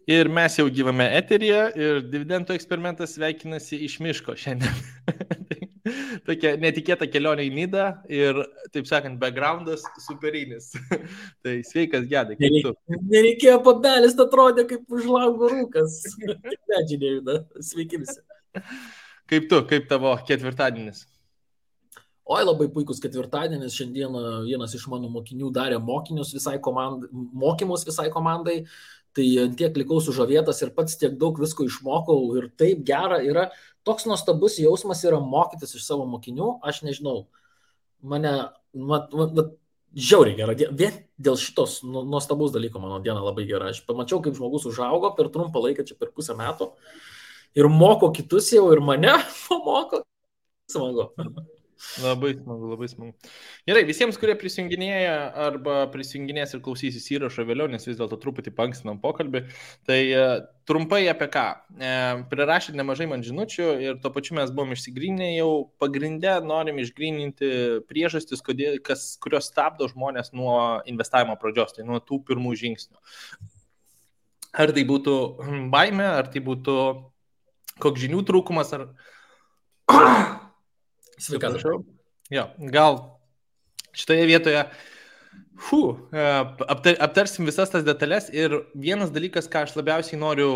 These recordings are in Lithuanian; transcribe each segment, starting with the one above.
Ir mes jau gyvame eteryje ir dividendų eksperimentas sveikinasi iš miško šiandien. Tokia netikėta kelionė į Nidą ir, taip sakant, backgroundas superinis. Tai sveikas, Gedai, kaip tu? Nereikėjo pabelis, atrodė kaip už lango rūkas. Tik medžiai nejuda. Sveiki visi. Kaip tu, kaip tavo ketvirtadienis? Oi, labai puikus ketvirtadienis. Šiandieną vienas iš mano mokinių darė mokymus visai komandai. Tai tiek likau sužavėtas ir pats tiek daug visko išmokau ir taip gera yra. Toks nuostabus jausmas yra mokytis iš savo mokinių. Aš nežinau, mane žiauriai gera. Vien dėl šitos nuostabaus dalyko mano diena labai gera. Aš pamačiau, kaip žmogus užaugo per trumpą laiką, čia per pusę metų. Ir moko kitus jau, ir mane pamoko. Smagu. Labai smagu, labai smagu. Gerai, visiems, kurie prisijunginėja arba prisijunginės ir klausysis įrašo vėliau, nes vis dėlto truputį paankstinam pokalbį, tai trumpai apie ką. Prirašėt nemažai man žinučių ir tuo pačiu mes buvom išsigryninę jau pagrindę, norim išgryninti priežastis, kurios stabdo žmonės nuo investavimo pradžios, tai nuo tų pirmų žingsnių. Ar tai būtų baimė, ar tai būtų koks žinių trūkumas, ar... Sveikatos. Jo, gal šitoje vietoje aptarsim visas tas detalės ir vienas dalykas, ką aš labiausiai noriu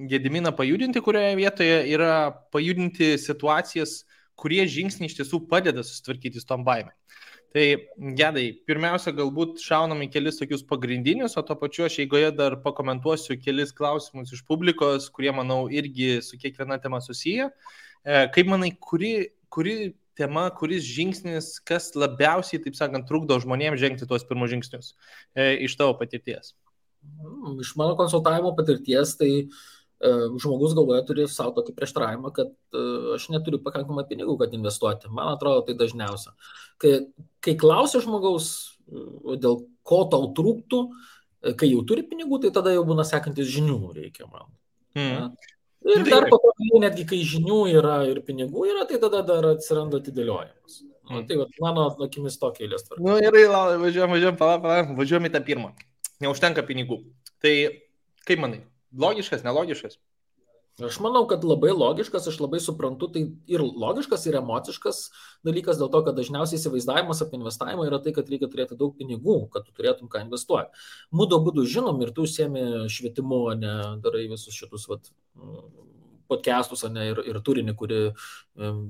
Gediminą pajudinti, kurioje vietoje yra pajudinti situacijas, kurie žingsniai iš tiesų padeda susitvarkyti su tom baimėm. Tai, Gedai, pirmiausia, galbūt šaunam į kelis tokius pagrindinius, o to pačiu aš eigoje dar pakomentuosiu kelis klausimus iš publikos, kurie, manau, irgi su kiekviena tema susiję. Kaip manai, kuri tema, kuris žingsnis, kas labiausiai, taip sakant, trukdo žmonėms žengti tuos pirmus žingsnius iš tavo patirties? Iš mano konsultavimo patirties, tai žmogus galvoje turi savo tokį prieštaravimą, kad aš neturiu pakankamai pinigų, kad investuoti. Man atrodo, tai dažniausia. Kai klausia žmogaus, dėl ko tau trūktų, kai jau turi pinigų, tai tada jau būna sekantis žinių reikia man. Ir dar po to, netgi kai žinių yra ir pinigų yra, tai tada dar atsiranda atidėliojimas. Tai vat, mano akimis tokia eilės tvarka. Gerai, važiuojam į tą pirmą. Neužtenka pinigų. Tai kaip manai, logiškas, nelogiškas? Aš manau, kad labai logiškas, aš labai suprantu, tai ir logiškas, ir emociškas dalykas, dėl to, kad dažniausiai įsivaizdavimas apie investavimą yra tai, kad reikia turėti daug pinigų, kad tu turėtum ką investuoti. Mūdo būdų žinom ir tu užsiemi švietimu, ne darai visus šitus podcastus, ne, ir turinį, kuri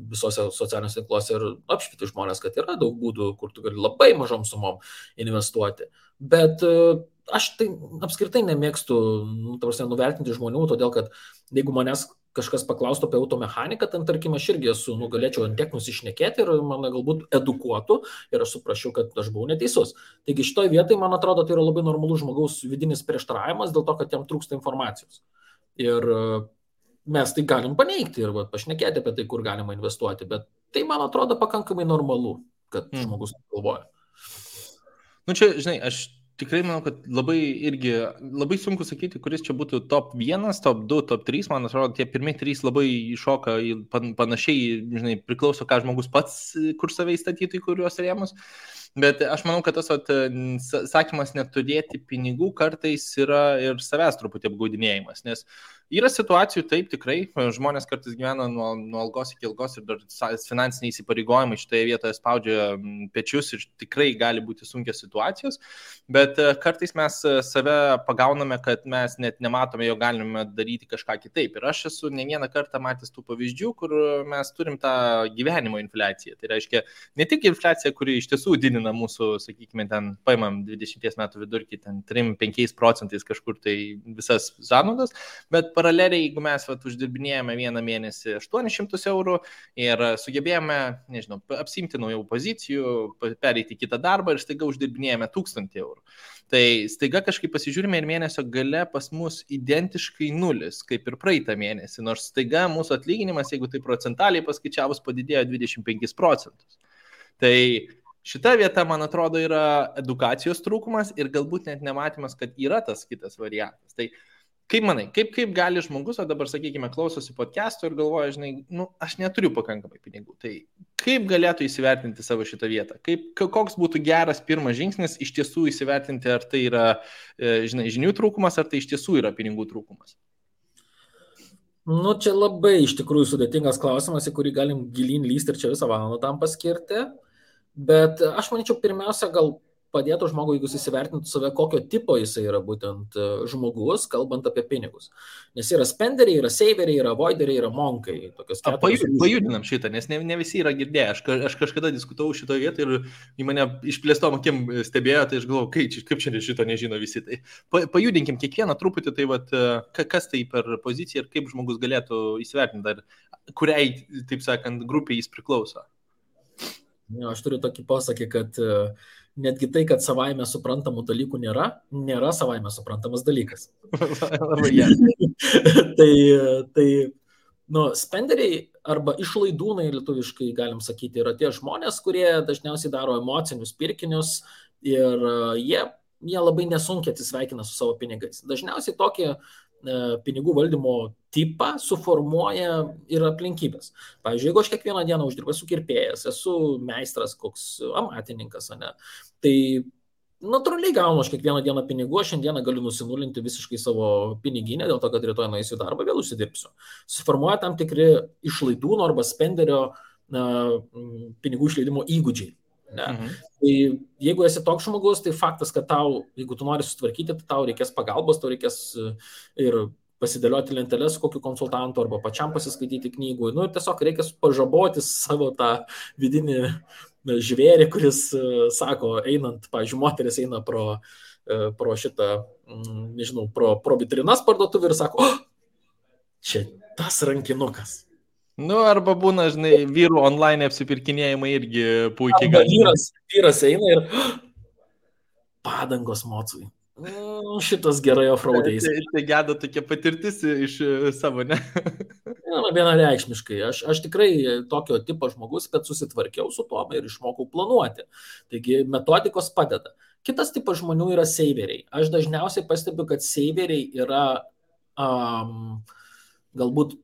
visose socialiniuose tinkluose ir apšvieti žmonės, kad yra daug būdų, kur tu gali labai mažom sumom investuoti. Bet aš tai apskritai nemėgstu nuvertinti žmonių, todėl kad jeigu manęs kažkas paklaustų apie automechaniką, ten tarkim aš irgi galėčiau ant tiek nusišnekėti ir mane galbūt edukuotų ir aš suprasčiau, kad aš buvau neteisus. Taigi šitoje vietoje, man atrodo, tai yra labai normalus žmogaus vidinis prieštaravimas dėl to, kad jam trūksta informacijos. Ir mes tai galim paneigti ir pašnekėti apie tai, kur galima investuoti, bet tai, man atrodo, pakankamai normalu, kad žmogus galvoja. Čia, žinai, aš tikrai manau, kad labai sunku sakyti, kuris čia būtų top 1, top 2, top 3, man atrodo, tie pirmieji 3 labai iššoka panašiai, žinai, priklauso, ką žmogus pats, kur save įstatytų į kuriuos rėmus, bet aš manau, kad tas sakymas neturėti pinigų kartais yra ir savęs truputį apgaudinėjimas, nes yra situacijų, taip, tikrai, žmonės kartais gyvena nuo algos iki algos ir dar finansiniai įsipareigojimai šitoje vietoje spaudžia pečius ir tikrai gali būti sunkios situacijos, bet kartais mes save pagauname, kad mes net nematome, jo galime daryti kažką kitaip. Ir aš esu ne vieną kartą matęs tų pavyzdžių, kur mes turim tą gyvenimo infliaciją. Tai reiškia, ne tik infliacija, kuri iš tiesų didina mūsų, sakykime, ten paimam 20 metų vidurkį, ten 3-5% kažkur tai visas sąnaudas, bet paraleliai, jeigu mes uždirbinėjame vieną mėnesį 800 eurų ir sugebėjome, nežinau, apsimti naujų pozicijų, pereiti kitą darbą ir staiga uždirbinėjame 1000 eurų. Tai staiga kažkaip pasižiūrime ir mėnesio gale pas mus identiškai nulis, kaip ir praeitą mėnesį, nors staiga mūsų atlyginimas, jeigu tai procentaliai paskaičiavus, padidėjo 25%. Tai šita vieta, man atrodo, yra edukacijos trūkumas ir galbūt net nematymas, kad yra tas kitas variantas. Tai Kaip manai, kaip gali žmogus, o dabar, sakykime, klausosi podcast'o ir galvoja, žinai, aš neturiu pakankamai pinigų, tai kaip galėtų įsivertinti savo šitą vietą? Koks būtų geras pirmas žingsnis iš tiesų įsivertinti, ar tai yra, žinai, žinių trūkumas, ar tai iš tiesų yra pinigų trūkumas? Čia labai iš tikrųjų sudėtingas klausimas, į kurį galim gilin lysti ir čia visą valandą tam paskirti, bet aš manyčiau, pirmiausia, gal padėtų žmogui, jeigu jis įsivertintų save, kokio tipo jisai yra būtent žmogus, kalbant apie pinigus. Nes yra spenderiai, yra saveriai, yra avoideriai, yra monkai. Pajudinam šitą, nes ne visi yra girdėję. Aš kažkada diskutavau šitoje vietoje ir į mane išplėstom akim stebėjo, tai aš galvoju, kaip čia šito nežino visi. Tai pajudinkim kiekvieną truputį, tai vat, kas tai per poziciją ir kaip žmogus galėtų įsivertinti, kuriai, taip sakant, grupiai jis priklauso. Aš turiu tokį posakį, kad netgi tai, kad savaime suprantamų dalykų nėra savaime suprantamas dalykas. Tai spenderiai arba išlaidūnai, lietuviškai galim sakyti, yra tie žmonės, kurie dažniausiai daro emocinius pirkinius ir jie labai nesunkiai atsisveikina su savo pinigais. Dažniausiai tokį pinigų valdymo tipą suformuoja ir aplinkybės. Pavyzdžiui, jeigu aš kiekvieną dieną uždirbu, esu kirpėjas, esu meistras, koks amatininkas, tai natūraliai gaunu aš kiekvieną dieną pinigų, aš šiandieną galiu nusinulinti visiškai savo piniginę, dėl to, kad rytoj nueisiu į darbą, vėl užsidirbsiu. Suformuoja tam tikri išlaidūno arba spenderio pinigų išleidimo įgūdžiai. Tai jeigu esi toks žmogus, tai faktas, kad tau, jeigu tu nori sutvarkyti, tai tau reikės pagalbos, tau reikės ir pasidėlioti lenteles su kokiu konsultantu arba pačiam pasiskaityti knygų. Ir tiesiog reikės pažaboti savo tą vidinį žvėrį, kuris sako, einant, pavyzdžiui, moteris eina pro šitą, nežinau, pro vitrinas parduotuvę ir sako, čia tas rankinukas. Arba būna, žinai, vyrų online apsipirkinėjimai irgi puikiai gali. Vyras eina ir padangos mocui. Šitas gerai offroadais. Tai geda tokia patirtis iš savo, ne? Vienareikšmiškai. Aš tikrai tokio tipo žmogus, kad susitvarkiau su tuo ir išmokau planuoti. Taigi metodikos padeda. Kitas tipas žmonių yra saveriai. Aš dažniausiai pastebiu, kad saveriai yra galbūt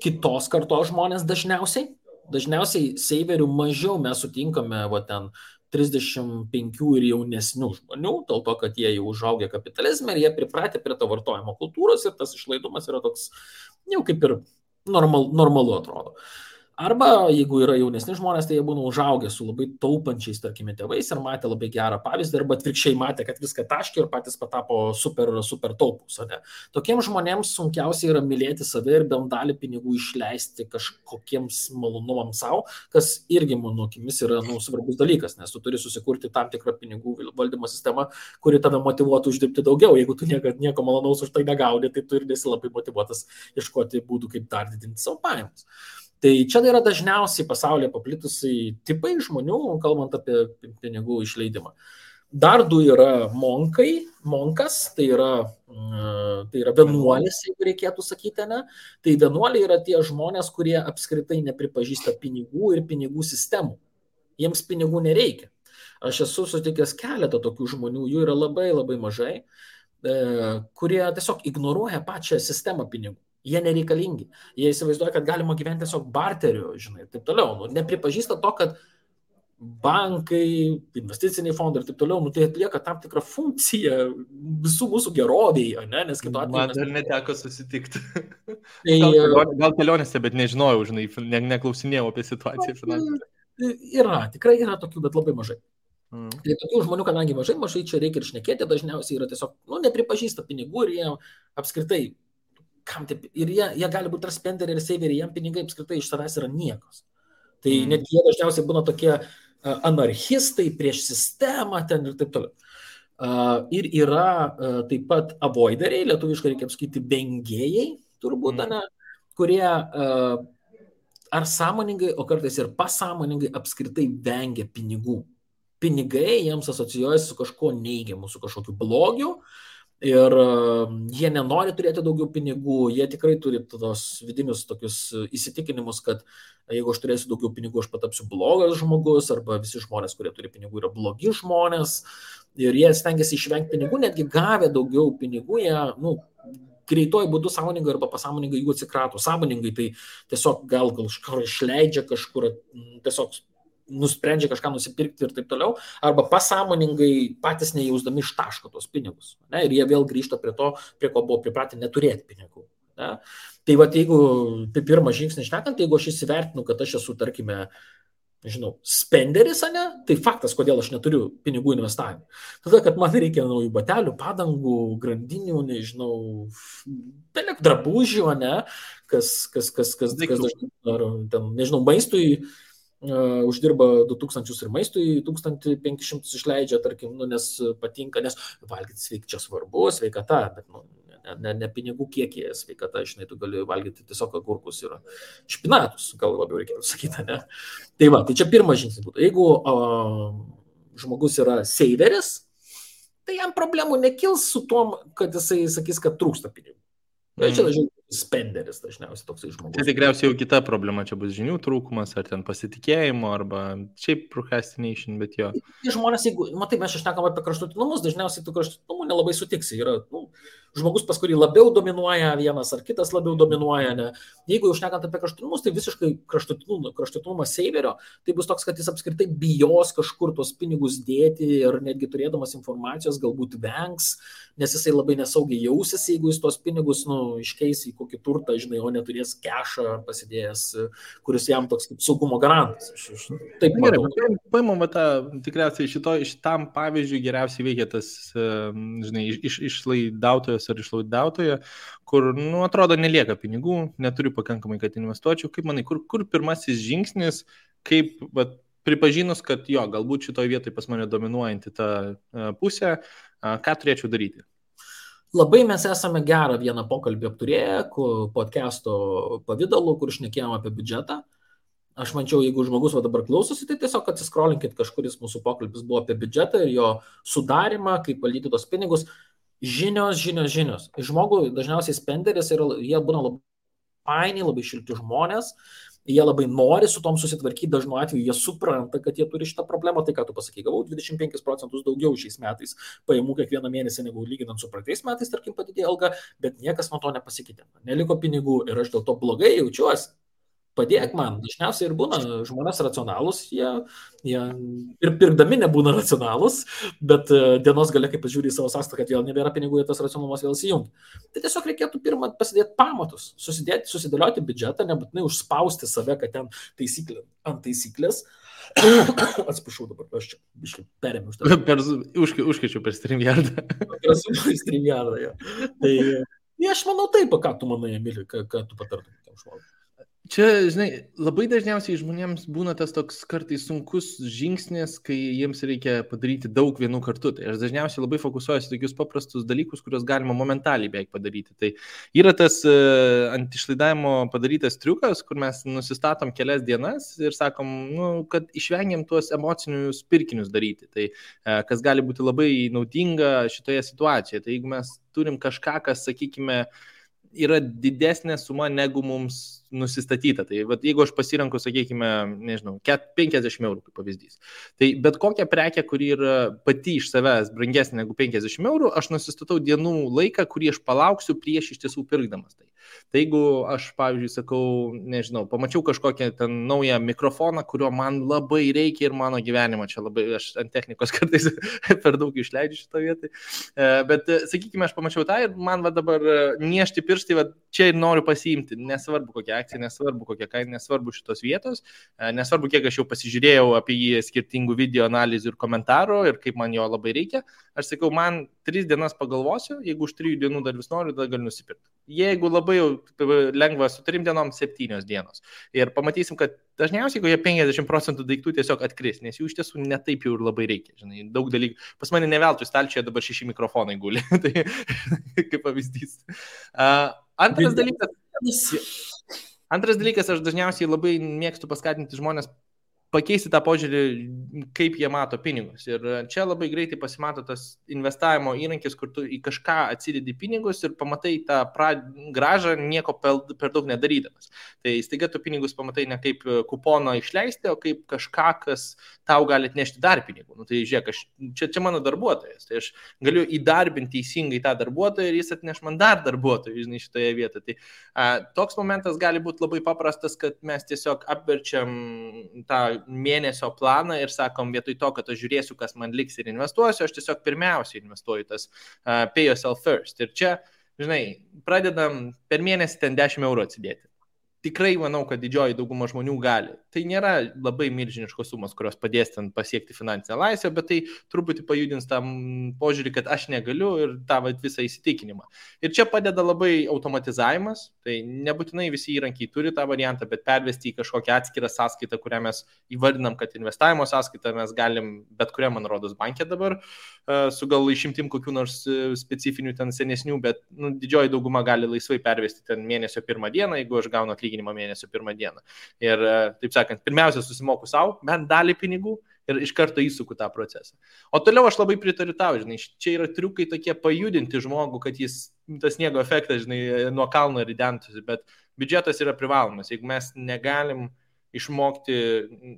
kitos kartos žmonės dažniausiai. Dažniausiai saverių mažiau mes sutinkame ten 35 ir jaunesnių žmonių, dėl to, kad jie jau užaugę kapitalizme ir jie pripratę prie to vartojimo kultūros ir tas išlaidumas yra toks, jau kaip ir normalu atrodo. Arba jeigu yra jaunesni žmonės, tai jie būna užaugę su labai taupančiais, tarkime, tėvais ir matė labai gerą pavyzdį, arba atvirkščiai matė, kad viską taškė ir patys patapo super taupus. Tokiems žmonėms sunkiausia yra mylėti save ir bent dalį pinigų išleisti kažkokiems malonumams savo, kas irgi, mano akimis, yra svarbus dalykas, nes tu turi susikurti tam tikrą pinigų valdymo sistemą, kuri tave motyvuotų uždirbti daugiau. Jeigu tu nieko malonaus už tai negauni, tai tu ir nesi labai motyvuotas ieškoti būdų, kaip dar didinti savo pajamas. Tai čia yra dažniausiai pasaulyje paplitusiai tipai žmonių, kalbant apie pinigų išleidimą. Dar du yra monkas, tai yra vienuolis, jeigu reikėtų sakyti, ne? Tai vienuoliai yra tie žmonės, kurie apskritai nepripažįsta pinigų ir pinigų sistemų. Jiems pinigų nereikia. Aš esu sutikęs keletą tokių žmonių, jų yra labai labai mažai, kurie tiesiog ignoruoja pačią sistemą pinigų. Jie nereikalingi. Jie įsivaizduoja, kad galima gyventi tiesiog barteriu, žinai, ir taip toliau. Nepripažįsta to, kad bankai, investiciniai fondai ir taip toliau, tai atlieka tam tikrą funkciją visų mūsų gerovėje, ne? Nes kitu atveju... Man dar neteko susitikti. Gal kelionėse, bet nežinojau, žinai, neklausinėjau apie situaciją finansinę. Tikrai yra tokių, bet labai mažai. Tai tokių žmonių, kadangi mažai čia reikia ir šnekėti, dažniausiai yra tiesiog, nepripažįsta pinigų ir jie apskritai ir jie gali būti ir spenderiai, ir saveriai, jiem pinigai apskritai iš savęs yra niekos. Tai net jie dažniausiai būna tokie anarchistai prieš sistemą ten ir taip toliau. Ir yra taip pat avoideriai, lietuviškai reikia apskaityti vengėjai, turbūt, kurie ar sąmoningai, o kartais ir pasąmoningai apskritai vengia pinigų. Pinigai jiems asocijuojasi su kažkuo neigiamu, su kažkokiu blogiu. Ir jie nenori turėti daugiau pinigų, jie tikrai turi tos vidinius tokius įsitikinimus, kad jeigu aš turėsiu daugiau pinigų, aš patapsiu blogas žmogus, arba visi žmonės, kurie turi pinigų, yra blogi žmonės. Ir jie stengiasi išvengti pinigų, netgi gavę daugiau pinigų, jie greituoju būdu sąmoningai arba pasąmoningai jų atsikrato. Sąmoningai tai tiesiog gal kažkur išleidžia, kažkur tiesiog nusprendžia kažką nusipirkti ir taip toliau, arba pasąmoningai patys nejausdami ištaško tos pinigus. Ne? Ir jie vėl grįžta prie to, prie ko buvo pripratę neturėti pinigų. Ne? Tai va, jeigu pirmą žingsnį šnekant, jeigu aš įsivertinu, kad aš esu, tarkime, nežinau, spenderis, ne, tai faktas, kodėl aš neturiu pinigų investavimui. Tada, kad man reikia naujų batelių, padangų, grandinių, nežinau, drabužių, ne, kas dažnai, ar ten, nežinau, maistui uždirba 2000 ir maistui 1500 išleidžia, tarkim, nes patinka, nes valgyti čia svarbu, sveikata, bet ne pinigų kiekį sveikata, žinai, tu gali valgyti tiesiog agurkus ir špinatus, gal labiau reikėtų sakyti, ne? Tai va, tai čia pirmas žingsnis būtų. Jeigu žmogus yra saveris, tai jam problemų nekils su tom, kad jisai sakys, kad trūksta pinigų. Čia dažniausiai spenderis, dažniausiai toksai žmogus. Tai tikriausiai jau kita problema, čia bus žinių trūkumas, ar ten pasitikėjimo, arba šiaip procrastination, bet jo. Žmonės, jeigu, matai, mes šnekam apie kraštutinumus, dažniausiai tų kraštutinumų nelabai sutiksi. Yra žmogus, pas kurį labiau dominuoja vienas ar kitas labiau dominuoja. Ne? Jeigu jau šnekant apie kraštutinumus, tai visiškai kraštutinumas saverio, tai bus toks, kad jis apskritai bijos kažkur tuos pinigus dėti ir netgi turėdamas informacijos galbūt vengs, nes jisai labai nesaugiai jausis, jeigu jis tuos pinigus iškeis į kokį turtą, žinai, o neturės kešą pasidėjęs, kuris jam toks kaip saugumo garantas. Taip, gerai, paimam tą, tikriausiai šitam pavyzdžiui geriausiai veikia tas, žinai, išlaidautojas ar išlaidautoja, kur, atrodo, nelieka pinigų, neturiu pakankamai, kad investuočiau. Kaip manai, kur pirmasis žingsnis, kaip pripažinus, kad jo, galbūt šitoje vietoje pas mane dominuojanti ta pusė, ką turėčiau daryti? Labai mes esame gerą vieną pokalbį apturėję, podcast'o pavidalu, kur šnekėjom apie biudžetą. Aš mančiau, jeigu žmogus dabar klausosi, tai tiesiog atsiskrolinkit, kažkuris mūsų pokalbis buvo apie biudžetą ir jo sudarimą, kaip valdyti tos pinigus. Žinios. Žmogui dažniausiai spenderis ir jie būna labai faini, labai šilti žmonės. Jie labai nori su tom susitvarkyti, dažnu atveju jie supranta, kad jie turi šitą problemą, tai ką tu pasakai, gavau 25% daugiau šiais metais pajamų kiekvieną mėnesį negu lyginant su praeitais metais, tarkim, padidėjo alga, bet niekas nuo to nepasikeitė. Neliko pinigų ir aš dėl to blogai jaučiuosi. Padėk man, dažniausiai ir būna žmonės racionalūs, jie ir pirkdami nebūna racionalūs, bet dienos gale, kai pažiūrė į savo sąskaitą, kad vėl nebėra pinigų, tas racionalumas vėl įsijungia. Tai tiesiog reikėtų pirmą pasidėti pamatus, susidėlioti biudžetą, nebūtinai užspausti save, kad ten taisyklė ant taisyklės. Atsiprašau dabar, aš čia biškai perėmiau už tą. Užkeičiu per StreamYardą. Per StreamYardą, jo. Tai aš manau taip, ką tu manai, Emili, ką tu patartum tam žmogui. Čia, žinai, labai dažniausiai žmonėms būna tas toks kartais sunkus žingsnis, kai jiems reikia padaryti daug vienų kartu. Tai aš dažniausiai labai fokusuojuosi tokius paprastus dalykus, kuriuos galima momentaliai beveik padaryti. Tai yra tas ant išlaidavimo padarytas triukas, kur mes nusistatom kelias dienas ir sakom, kad išvengiam tuos emocinius pirkinius daryti. Tai kas gali būti labai naudinga šitoje situacijoje. Tai jeigu mes turim kažką, kas, sakykime, yra didesnė suma negu mums nusistatyta. Tai jeigu aš pasirenku, sakykime, nežinau, 50 eurų kaip pavyzdys. Tai bet kokią prekę, kuri yra pati iš savęs brangesnė negu 50 eurų, aš nusistatau dienų laiką, kurį aš palauksiu prieš iš tiesų pirkdamas tai. Tai jeigu aš, pavyzdžiui, sakau, nežinau, pamačiau kažkokią ten naują mikrofoną, kurio man labai reikia ir mano gyvenimo, čia labai, aš ant technikos kartais per daug išleidžiu šitą vietą, bet, sakykime, aš pamačiau tą ir man dabar niešti pirštai, čia ir noriu pasiimti, nesvarbu kokia akcija, nesvarbu kokia kaina, nesvarbu šitos vietos, nesvarbu kiek aš jau pasižiūrėjau apie jį skirtingų video analizių ir komentarų ir kaip man jo labai reikia, aš sakau, man 3 dienas pagalvosiu, jeigu už 3 dienų dar vis noriu, tada galiu nusipirkti. Jeigu labai jau lengva su 3 dienom 7 dienos. Ir pamatysim, kad dažniausiai kokie 50% daiktų tiesiog atkris, nes jų iš tiesų netaip jau ir labai reikia. Žinai, daug dalykų. Pas mane ne veltui stalčioje dabar 6 mikrofonai guli. Tai kaip pavyzdys. Antras dalykas, aš dažniausiai labai mėgstu paskatinti žmonės pakeisti tą požiūrį, kaip jie mato pinigus. Ir čia labai greitai pasimato tas investavimo įrankis, kur tu į kažką atsidedi pinigus ir pamatai tą gražą nieko per daug nedarydamas. Tai staiga tu pinigus pamatai ne kaip kupono išleisti, o kaip kažką, kas tau gali atnešti dar pinigų. Nu, tai žiūrėk, čia mano darbuotojas, tai aš galiu įdarbinti teisingai tą darbuotoją ir jis atneš man dar darbuotojų, žinai, šitoje vietoje. Tai toks momentas gali būti labai paprastas, kad mes tiesiog apverčiam tą mėnesio planą ir sakom, vietoj to, kad aš žiūrėsiu, kas man liks ir investuosiu, aš tiesiog pirmiausiai investuoju tas pay yourself first. Ir čia, žinai, pradedam per mėnesį ten 10 eurų atsidėti. Tikrai manau, kad didžioji dauguma žmonių gali. Tai nėra labai milžiniškos sumos, kurios padės ten pasiekti finansinę laisvę, bet tai truputį pajudins tam požiūrį, kad aš negaliu ir tą visą įsitikinimą. Ir čia padeda labai automatizavimas, tai nebūtinai visi įrankiai turi tą variantą, bet pervesti į kažkokią atskirą sąskaitą, kurią mes įvardinam, kad investavimo sąskaitą mes galim bet kurią, man rodos, bankę dabar, su gal išimtim kokių nors specifinių ten senesnių, bet didžioji dauguma gali laisvai pervesti ten mėnesio pirmą dieną, jeigu aš gaunu atlyginimą mėnesio pirmą dieną. Ir taip sakant, pirmiausia susimoku savo, bent dalį pinigų ir iš karto įsuku tą procesą. O toliau aš labai pritariu tau, žinai, čia yra triukai tokie pajudinti žmogų, kad jis tas sniego efektas, žinai, nuo kalno ridentųsi, bet biudžetas yra privalomas. Jeigu mes negalim išmokti,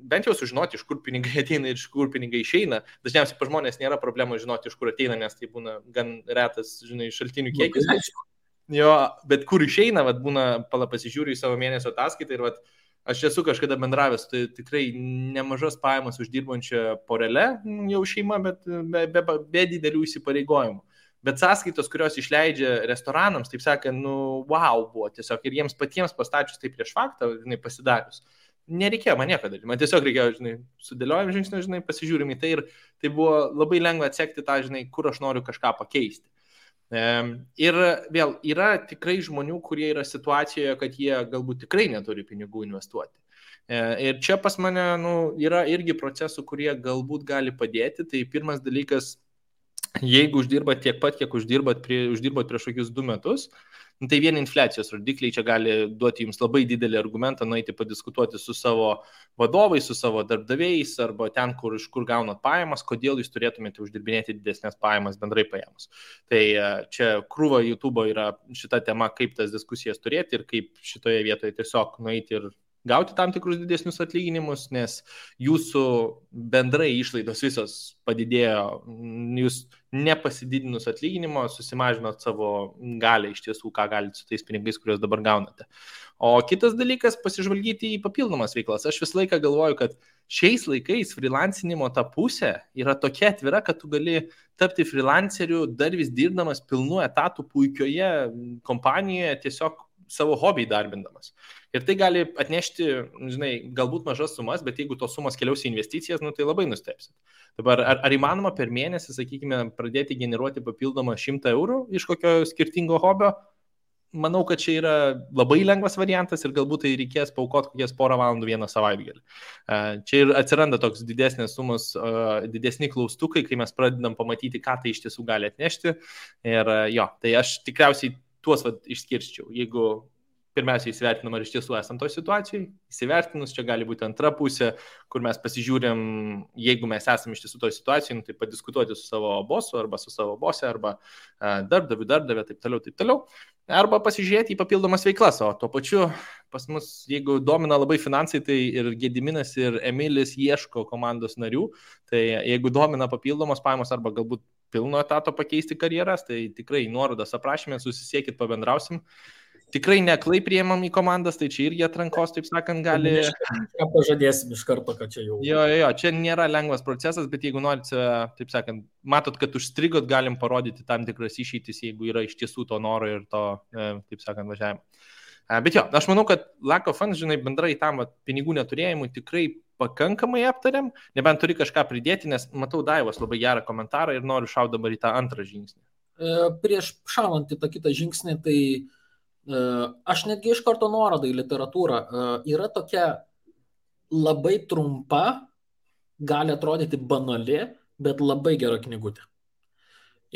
bent jau sužinoti, iš kur pinigai ateina ir iš kur pinigai išeina. Dažniausiai pa žmonės nėra problemų žinoti, iš kur ateina, nes tai būna gan retas, žinai, šaltinių kiekis. Jo, bet kur išeina, vat, būna, pasižiūriu į savo mėnesio ataskaitą ir vat, aš esu kažkada bendravęs, tai tikrai nemažas pajamas uždirbančią porelę, jau šeima, bet be didelių įsipareigojimų. Bet sąskaitos, kurios išleidžia restoranams, taip sakant, wow buvo tiesiog ir jiems patiems pastačius tai prieš faktą, žinai, pasidarius. Nereikėjo man nieko daryti, man tiesiog reikėjo, žinai, sudėliojom žingsnį, žinai, pasižiūrim į tai ir tai buvo labai lengva atsekti tą, žinai, kur aš noriu kažką pakeisti. Ir vėl yra tikrai žmonių, kurie yra situacijoje, kad jie galbūt tikrai neturi pinigų investuoti. Ir čia pas mane yra irgi procesų, kurie galbūt gali padėti. Tai pirmas dalykas, jeigu uždirbat tiek pat, kiek uždirbat prieš kokius 2 metus, tai vien infliacijos rodikliai čia gali duoti jums labai didelį argumentą nueiti padiskutuoti su savo vadovais, su savo darbdaviais arba ten, iš kur gaunat pajamas, kodėl jūs turėtumėte uždirbinėti didesnės pajamas bendrai pajamas. Tai čia krūva YouTube yra šita tema, kaip tas diskusijas turėti ir kaip šitoje vietoje tiesiog nueiti ir gauti tam tikrus didesnius atlyginimus, nes jūsų bendrai išlaidos visos padidėjo, jūs nepasididinus atlyginimo susimažinot savo galę iš tiesų, ką galite su tais pinigais, kuriuos dabar gaunate. O kitas dalykas, pasižvalgyti į papildomas veiklas. Aš visą laiką galvoju, kad šiais laikais freelancinimo ta pusė yra tokia atvira, kad tu gali tapti freelanceriu dar vis dirbdamas pilnu etatų puikioje kompanijoje, tiesiog savo hobį darbindamas. Ir tai gali atnešti, žinai, galbūt mažas sumas, bet jeigu tos sumas keliaus į investicijas, tai labai nustebsit. Dabar, ar įmanoma per mėnesį, sakykime, pradėti generuoti papildomą 100 eurų iš kokio skirtingo hobio? Manau, kad čia yra labai lengvas variantas ir galbūt tai reikės paaukoti kokias 1 valandų vieną savaitgalį. Čia ir atsiranda toks didesnės sumos, didesni klaustukai, kai mes pradedam pamatyti, ką tai iš tiesų gali atnešti. Ir jo, tai aš tikriausiai tuos išskirščiau. Jeigu pirmiausia įsivertinam, ar iš tiesų esam toj situacijai, įsivertinus, čia gali būti antra pusė, kur mes pasižiūrėm, jeigu mes esam iš tiesų toj situacijai, tai padiskutuoti su savo bosu, arba su savo bose, arba darbdavė, taip toliau. Arba pasižiūrėti į papildomas veiklas, o tuo pačiu pas mus, jeigu domina labai finansai, tai ir Gediminas, ir Emilis ieško komandos narių, tai jeigu domina papildomos pajamos arba galbūt pilno etato pakeisti karjeras, tai tikrai nuorodas aprašymė, susisiekit, pabendrausim. Tikrai neklai priėmam į komandas, tai čia irgi atrankos, taip sakant, gali... Ką pažadėsim iš karto, kad čia jau... Jo, čia nėra lengvas procesas, bet jeigu norite, taip sakant, matot, kad užstrigot, galim parodyti tam tikras išeitis, jeigu yra iš tiesų to noro ir to, taip sakant, važiavimo. Bet jo, aš manau, kad lack of funds, žinai, bendrai tam pinigų neturėjimui tikrai pakankamai aptariam, nebent turi kažką pridėti, nes matau Daivos labai gerą komentarą ir noriu šauti dabar į tą antrą žingsnį. Prieš šaunant į tą kitą žingsnį, tai aš netgi iš karto nuorodą į literatūrą. Yra tokia labai trumpa, gali atrodyti banali, bet labai gera knygutė.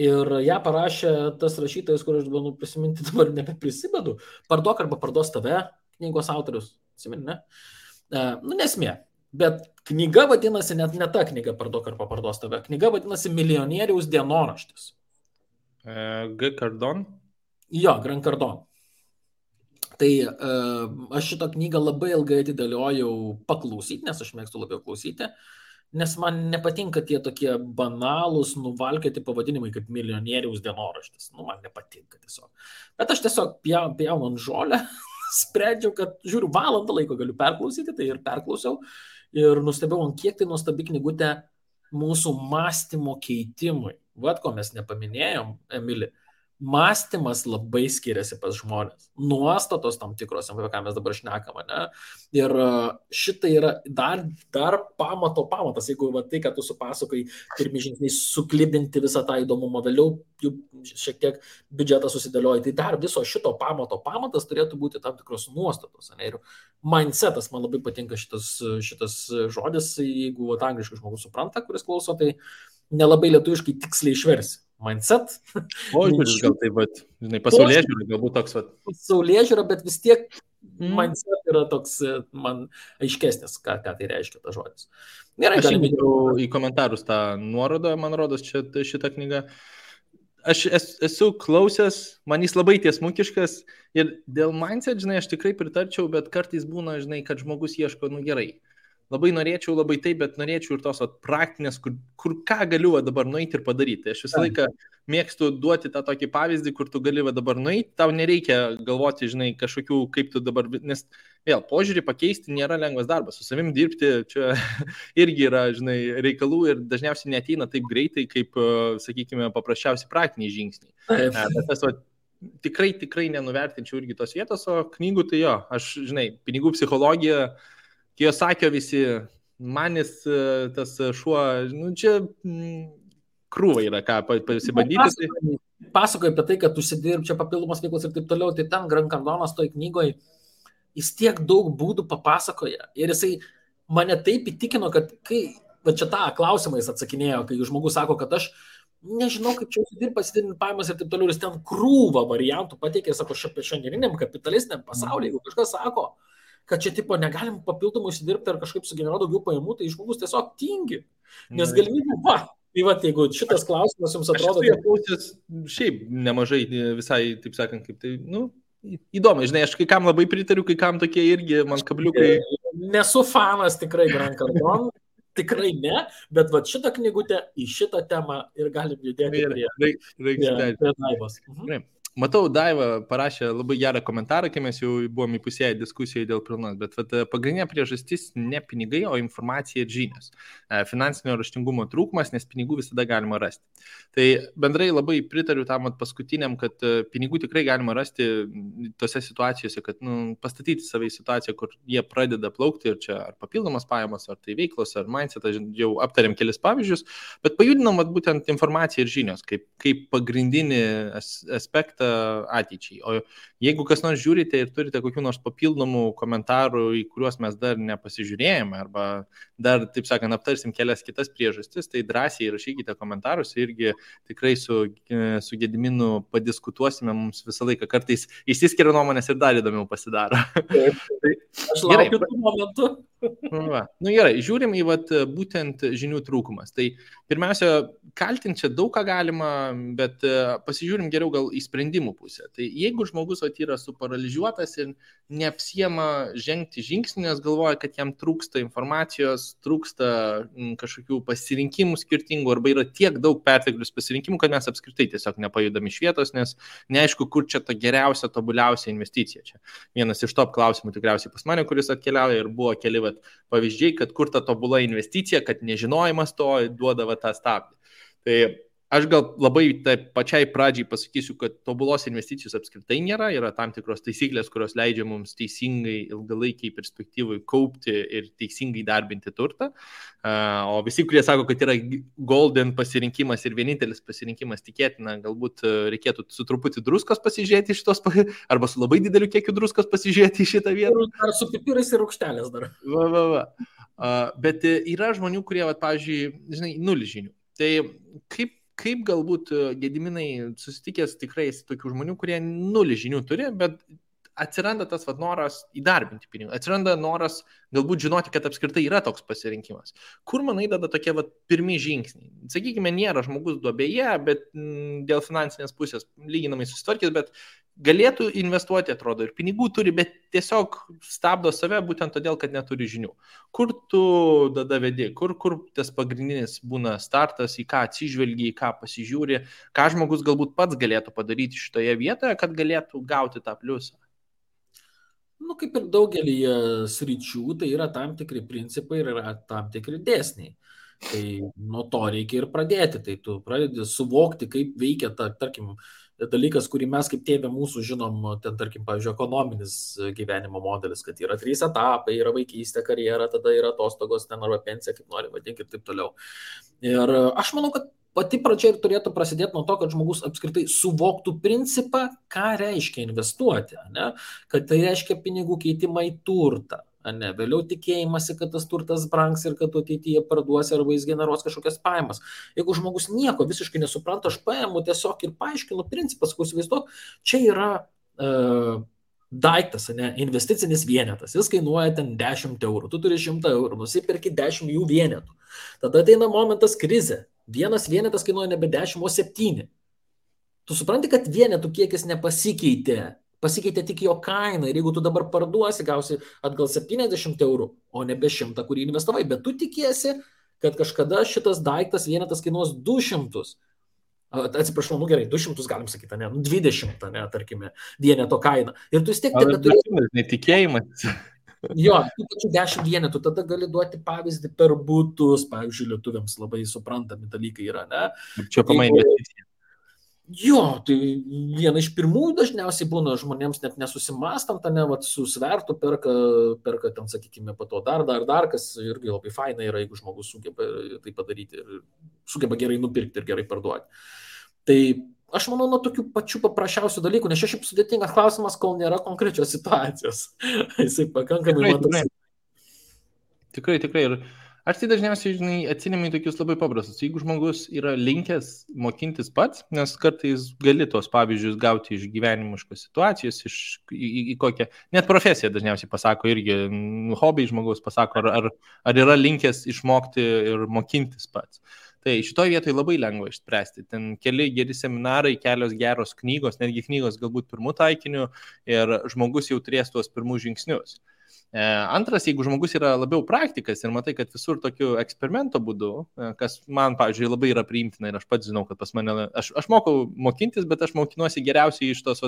Ir ją parašė tas rašytojas, kur aš bandau prisiminti, dabar nebeprisimenu, Parduok arba parduos tave, knygos autorius, atsimeni, ne? Nesmė. Bet knyga vadinasi, net ne ta knyga Parduok ar paparduos tave. Knyga vadinasi Milijonieriaus dienoraštis. G. Cardone. Jo, Grant Cardone. Tai aš šitą knygą labai ilgai atidėliojau paklausyti, nes aš mėgstu labiau klausyti, nes man nepatinka tie tokie banalūs, nuvalkioti pavadinimai kaip Milijonieriaus dienoraštis. Nu, man nepatinka tiesiog. Bet aš tiesiog pjaunu ant žolę, sprendžiau, kad žiūriu, valandą laiko galiu perklausyti, tai ir perklausiau. Ir nustebėjau, kiek tai nuostabi knygutė mūsų mąstymo keitimui. Vat ko mes nepaminėjom, Emili. Mąstymas labai skiriasi pas žmonės. Nuostatos tam tikros, apie ką mes dabar šnekame, ne? Ir šitai yra dar pamatas, jeigu va, tai, kad tu supasakai, pirmi žingsniai suklibinti visą tą įdomumą, vėliau jų šiek tiek biudžetą susidėlioja, tai dar viso šito pamatas turėtų būti tam tikros nuostatos. Ne? Ir mindsetas, man labai patinka šitas žodis, jeigu va, angliškai žmogus supranta, kuris klauso, tai nelabai lietuviškai tiksliai išversi. Mindset. Požiūris gal taip, bet, žinai, pasaulėžiūra galbūt toks. Pasaulėžiūra, bet vis tiek mindset yra toks man aiškesnis, ką tai reiškia tas žodis. Gerai, aš įmėjau į komentarus tą nuorodą, man rodos, šitą knygą. Aš esu klausęs, man jis labai tiesmukiškas ir dėl mindset, žinai, aš tikrai pritarčiau, bet kartais būna, žinai, kad žmogus ieško, nu gerai. Labai norėčiau, labai taip, bet norėčiau ir tos praktinės, kur ką galiu dabar nueiti ir padaryti. Aš visą laiką mėgstu duoti tą tokį pavyzdį, kur tu gali dabar nueiti, tau nereikia galvoti, žinai, kažkokių, kaip tu dabar, nes vėl, požiūrį pakeisti nėra lengvas darbas, su savim dirbti čia irgi yra, žinai, reikalų ir dažniausiai neateina taip greitai, kaip, sakykime, paprasčiausi praktiniai žingsniai. Bet tas, tikrai nenuvertinčiau irgi tos vietos, o knygų tai jo, aš, žinai, pinigų psichologija, Kiyosakio visi, manis tas šuo, nu čia krūva yra, ką pasibandyti. Pasakoju apie tai, kad tu užsidirb čia papildomas veiklos ir taip toliau, tai ten Grant Cardonas toj knygoje, jis tiek daug būdų papasakoja ir jisai mane taip įtikino, kad kai, va čia tą klausimą jis atsakinėjo, kai žmogus sako, kad aš nežinau, kaip čia užsidirb, pasididinti pajamas ir taip toliau, ir jis ten krūvą variantų pateikė, sako, šiandieniniam kapitalistiniam pasaulyje, jeigu kažkas sako, kad čia tipo negalim papildomai užsidirbti ar kažkaip sugeneruoti daugiau pajamų, tai žmogus tiesiog tingi. Nes galimybė, tai va, jeigu šitas klausimas jums atrodo... Aš klausęs šiaip nemažai visai, taip sakant, kaip tai, nu, įdomu, žinai, aš kai kam labai pritariu, kai kam tokie irgi man kabliukai... Nesu fanas tikrai Grant Cardone, tikrai ne, bet va šitą knygutę į šitą temą ir galim judėti prie Daivos. Matau, Daiva parašė labai gerą komentarą, kai mes jau buvom įpusėję diskusijoje dėl pilnos, bet pagrindinė priežastis ne pinigai, o informacija ir žinios. Finansinio raštingumo trūkumas, nes pinigų visada galima rasti. Tai bendrai labai pritariu tam paskutiniam, kad pinigų tikrai galima rasti tose situacijose, kad pastatyti save į situaciją, kur jie pradeda plaukti ir čia ar papildomas pajamas, ar tai veiklos, ar mindset, jau aptarėm kelis pavyzdžius, bet pajudinam būtent informaciją ir žinios kaip pagrindinį aspektą ateičiai. O jeigu kas nors žiūrite ir turite kokių nors papildomų komentarų, į kuriuos mes dar nepasižiūrėjome, arba dar, taip sakant, aptarsim kelias kitas priežastis, tai drąsiai rašykite komentarus, irgi tikrai su Gediminu padiskutuosime, mums visą laiką kartais išsiskiria nuomonės ir dar įdomiau pasidaro. Aš laukiu tų momentų. Gerai, žiūrim į būtent žinių trūkumas. Tai pirmiausia, kaltinti čia daug ką galima, bet pasižiūrim geriau gal į sprendimų pusę. Tai jeigu žmogus yra suparalyžiuotas ir neapsiema žengti žingsnį, nes galvoja, kad jam trūksta informacijos, trūksta kažkokių pasirinkimų skirtingų, arba yra tiek daug perteklius pasirinkimų, kad mes apskritai tiesiog nepajudam iš vietos, nes neaišku, kur čia ta geriausia, tobuliausia investicija. Čia vienas iš top klausimų tikriausiai pas mane, kuris atkeliauja ir buvo keli pavyzdžiai, kad kur ta tobula investicija, kad nežinojimas to duoda tą stabdį. Tai aš gal labai pačiai pradžiai pasakysiu, kad tobulos investicijos apskritai nėra, yra tam tikros taisyklės, kurios leidžia mums teisingai ilgalaikiai perspektyvai kaupti ir teisingai darbinti turtą. O visi, kurie sako, kad yra golden pasirinkimas ir vienintelis pasirinkimas, tikėtina, galbūt reikėtų su truputį druskos pasižiūrėti šitos, arba su labai dideliu kiekiu druskos pasižiūrėti į šitą vietą. Ar su pipirais ir rūgštelės dar. Bet yra žmonių, kurie, pavyzdžiui, žinai, nulį žinių. Tai kaip galbūt Gediminai susitikęs tikrai tokių žmonių, kurie nulį žinių turi, bet atsiranda tas noras įdarbinti pinigų, atsiranda noras galbūt žinoti, kad apskritai yra toks pasirinkimas. Kur, manai, tada tokie pirmi žingsniai? Sakykime, nėra žmogus duobėje, bet dėl finansinės pusės lyginamai susitvarkys, bet galėtų investuoti, atrodo, ir pinigų turi, bet tiesiog stabdo save būtent todėl, kad neturi žinių. Kur tu tada vedi, kur tas pagrindinis būna startas, į ką atsižvelgi, į ką pasižiūri, ką žmogus galbūt pats galėtų padaryti šitoje vietoje, kad galėtų gauti tą pliusą? Kaip ir daugelį sričių, tai yra tam tikri principai ir yra tam tikri dėsniai. Tai nuo to reikia ir pradėti. Tai tu pradedi suvokti, kaip veikia tarkim, dalykas, kurį mes kaip tėvė mūsų žinom, ten, tarkim, pavyzdžiui, ekonominis gyvenimo modelis, kad yra 3 etapai, yra vaikystė, karjera, tada yra atostogos, ten arba pensija, kaip nori vadinti ir taip toliau. Ir aš manau, kad pati pradžia ir turėtų prasidėti nuo to, kad žmogus apskritai suvoktų principą, ką reiškia investuoti, ne? Kad tai reiškia pinigų keitimą į turtą. Ne, vėliau tikėjimasi, kad tas turtas brangs ir kad ateityje parduosi arba jis generuos kažkokias pajamas. Jeigu žmogus nieko visiškai nesupranta, aš paimu tiesiog ir paaiškinu principas, kur įsivaizduok, čia yra daiktas, ne, investicinis vienetas, jis kainuoja ten 10 eurų, tu turi 100 eurų, nusipirki 10 jų vienetų. Tada ateina momentas krizė, vienas vienetas kainuoja nebe 10, o 7. Tu supranti, kad vienetų kiekis nepasikeitė. Pasikeitė tik jo kaina ir jeigu tu dabar parduosi, gausi atgal 70 eurų, o nebe 100, kurį investavai, bet tu tikiesi, kad kažkada šitas daiktas vienetas kainuos 200. Atsiprašau, gerai, 200 galim sakyti, ne, 20, ne, tarkime, vieneto kaina. Ir tu vis tiek turi... Netikėjimas. Jo, tų pačių 10 vienetų, tada gali duoti pavyzdį per butus, pavyzdžiui, lietuviams labai suprantami dalykai yra, ne? Čia pamai investicija. Jo, tai viena iš pirmųjų dažniausiai būna žmonėms net nesusimastant, ne, su svertu perka ten, sakykime, po to dar, kas irgi labai faina yra, jeigu žmogus sugeba tai padaryti ir sugeba gerai nupirkti ir gerai parduoti. Tai aš manau, nuo tokių pačių paprasčiausių dalykų, nes čia šiaip sudėtingas klausimas, kol nėra konkrečios situacijos. Jisai pakankamai matosi. Tikrai. Ir aš tai dažniausiai, atsinemi tokius labai paprastus. Jeigu žmogus yra linkęs mokintis pats, nes kartais gali tos pavyzdžius gauti iš gyvenimiškos situacijos, į kokią, net profesiją dažniausiai pasako irgi, hobį žmogaus pasako, ar yra linkęs išmokti ir mokintis pats. Tai šitoje vietoje labai lengva išspręsti. Ten keli geri seminarai, kelios geros knygos, netgi knygos galbūt pirmų taikinių ir žmogus jau turės tuos pirmus žingsnius. Antras, jeigu žmogus yra labiau praktikas ir matai, kad visur tokiu eksperimento būdu, kas man, pavyzdžiui, labai yra priimtina ir aš pats žinau, kad pas mane, aš mokau mokintis, bet aš mokinuosi geriausiai iš tos,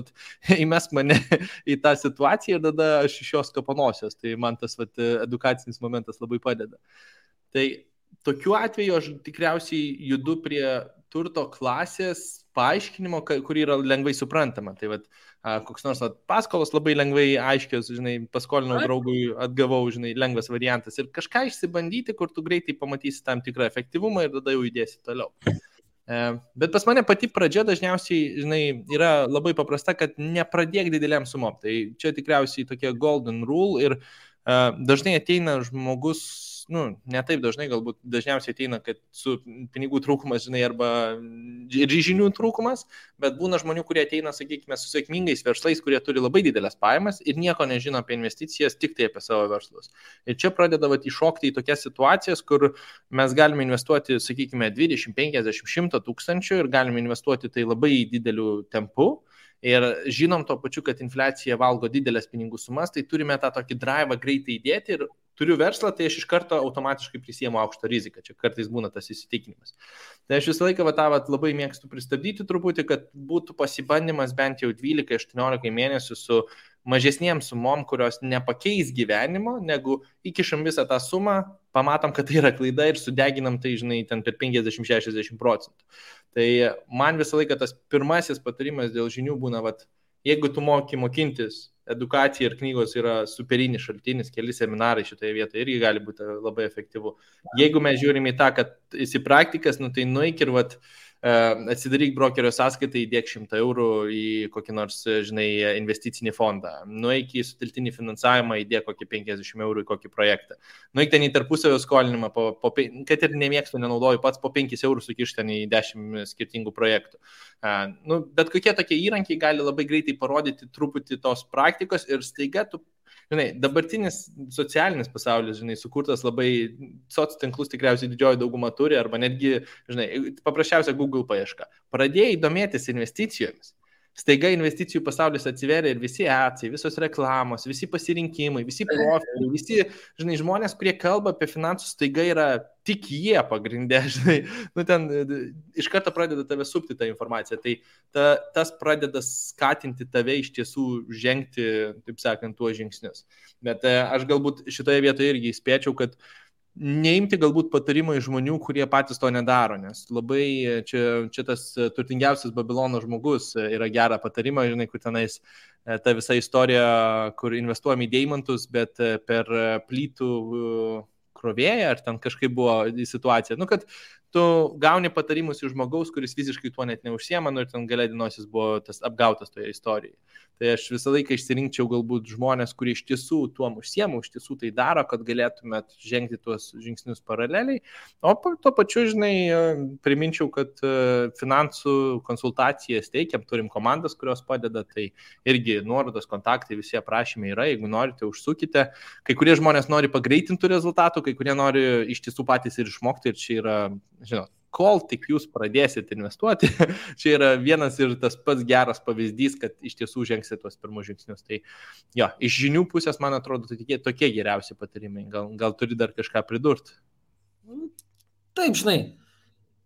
įmesk mane į tą situaciją ir tada aš iš jos kapanosios, tai man tas edukacinis momentas labai padeda. Tai tokiu atveju aš tikriausiai judu prie turto klasės paaiškinimo, kuri yra lengvai suprantama. Tai koks nors paskolos labai lengvai aiškios, paskolinau draugui, atgavau, lengvas variantas ir kažką išsibandyti, kur tu greitai pamatysi tam tikrą efektyvumą ir tada jau įdėsi toliau. Bet pas mane pati pradžia dažniausiai, yra labai paprasta, kad nepradėk dideliam sumom. Tai čia tikriausiai tokia golden rule ir dažnai ateina žmogus, ne taip dažnai, galbūt dažniausiai ateina, kad su pinigų trūkumas, arba ir žinių trūkumas, bet būna žmonių, kurie ateina, sakykime, su sėkmingais verslais, kurie turi labai didelės pajamas ir nieko nežino apie investicijas, tik tai apie savo verslus. Ir čia pradeda iššokti į tokias situacijas, kur mes galime investuoti, sakykime, 20, 50, 100 tūkstančių ir galime investuoti tai labai dideliu tempu. Ir žinom to pačiu, kad infliacija valgo didelės pinigų sumas, tai turime tą tokį drivą greitai įdėti ir turiu verslą, tai aš iš karto automatiškai prisiemu aukštą riziką. Čia kartais būna tas įsitikinimas. Tai aš visą laiką labai mėgstu pristabdyti truputį, kad būtų pasibandymas bent jau 12-18 mėnesių su mažesniem sumom, kurios nepakeis gyvenimo, negu įkišam visą tą sumą, pamatom, kad tai yra klaida ir sudeginam tai, ten per 50-60%. Tai man visą laiką tas pirmasis patarimas dėl žinių būna, jeigu tu mokintis, edukacija ir knygos yra superinis šaltinis, keli seminarai šitoje vietoje irgi gali būti labai efektyvu. Jeigu mes žiūrime į tą, kad esi praktikas, tai nueik ir atsidaryk brokerio sąskaitą, įdėk 100 eurų į kokį nors, žinai, investicinį fondą, nueik į sutelktinį finansavimą, įdėk kokį 50 eurų į kokį projektą, nueik ten į tarpusavio skolinimą, kad ir nemėgstu, nenaudoju pats, po 5 eurų sukiš ten į 10 skirtingų projektų. Bet kokie tokie įrankiai gali labai greitai parodyti truputį tos praktikos ir staiga tu, žinai, dabartinis socialinis pasaulis, žinai, sukurtas labai, soc tinklus tikriausiai didžioji dauguma turi, arba netgi, žinai, paprasčiausia Google paieška. Pradėjai domėtis investicijomis. Staiga investicijų pasaulis atsiveria ir visi atsai, visos reklamos, visi pasirinkimai, visi profiliai, visi, žinai, žmonės, kurie kalba apie finansus, staiga yra tik jie pagrindė, žinai, ten iš karto pradeda tave supti tą informaciją, tai tas pradeda skatinti tave iš tiesų žengti, taip sakant, tuos žingsnius. Bet aš galbūt šitoje vietoje irgi įspėčiau, kad neimti galbūt patarimą iš žmonių, kurie patys to nedaro, nes labai čia tas turtingiausias Babilono žmogus yra gerą patarimą, žinai, kur tenais ta visa istorija, kur investuojam į deimantus, bet per plytų krovėją, ar ten kažkaip buvo situacija, kad tu gauni patarimus iš žmogaus, kuris visiškai tuo net neužsiema, ir ten gale dienos jis buvo tas apgautas toje istorijoje. Tai aš visą laiką išsirinkčiau galbūt žmonės, kurie iš tiesų tuom užsiema, iš tiesų tai daro, kad galėtumėt žengti tuos žingsnius paraleliai. O tuo pačiu, žinai, priminčiau, kad finansų konsultacijas teikiam, turim komandas, kurios padeda, tai irgi nuorodos, kontaktai, visi aprašymai yra, jeigu norite, užsukite. Kai kurie žmonės nori pagreitintų rezultatų, kai kurie nori iš tiesų patys ir išmokti, ir čia yra, žinot, kol tik jūs pradėsit investuoti, čia yra vienas ir tas pats geras pavyzdys, kad iš tiesų žengsit tuos pirmus žingsnius. Tai jo, iš žinių pusės, man atrodo, tokie geriausi patarimai. Gal turi dar kažką pridurti? Taip, žinai,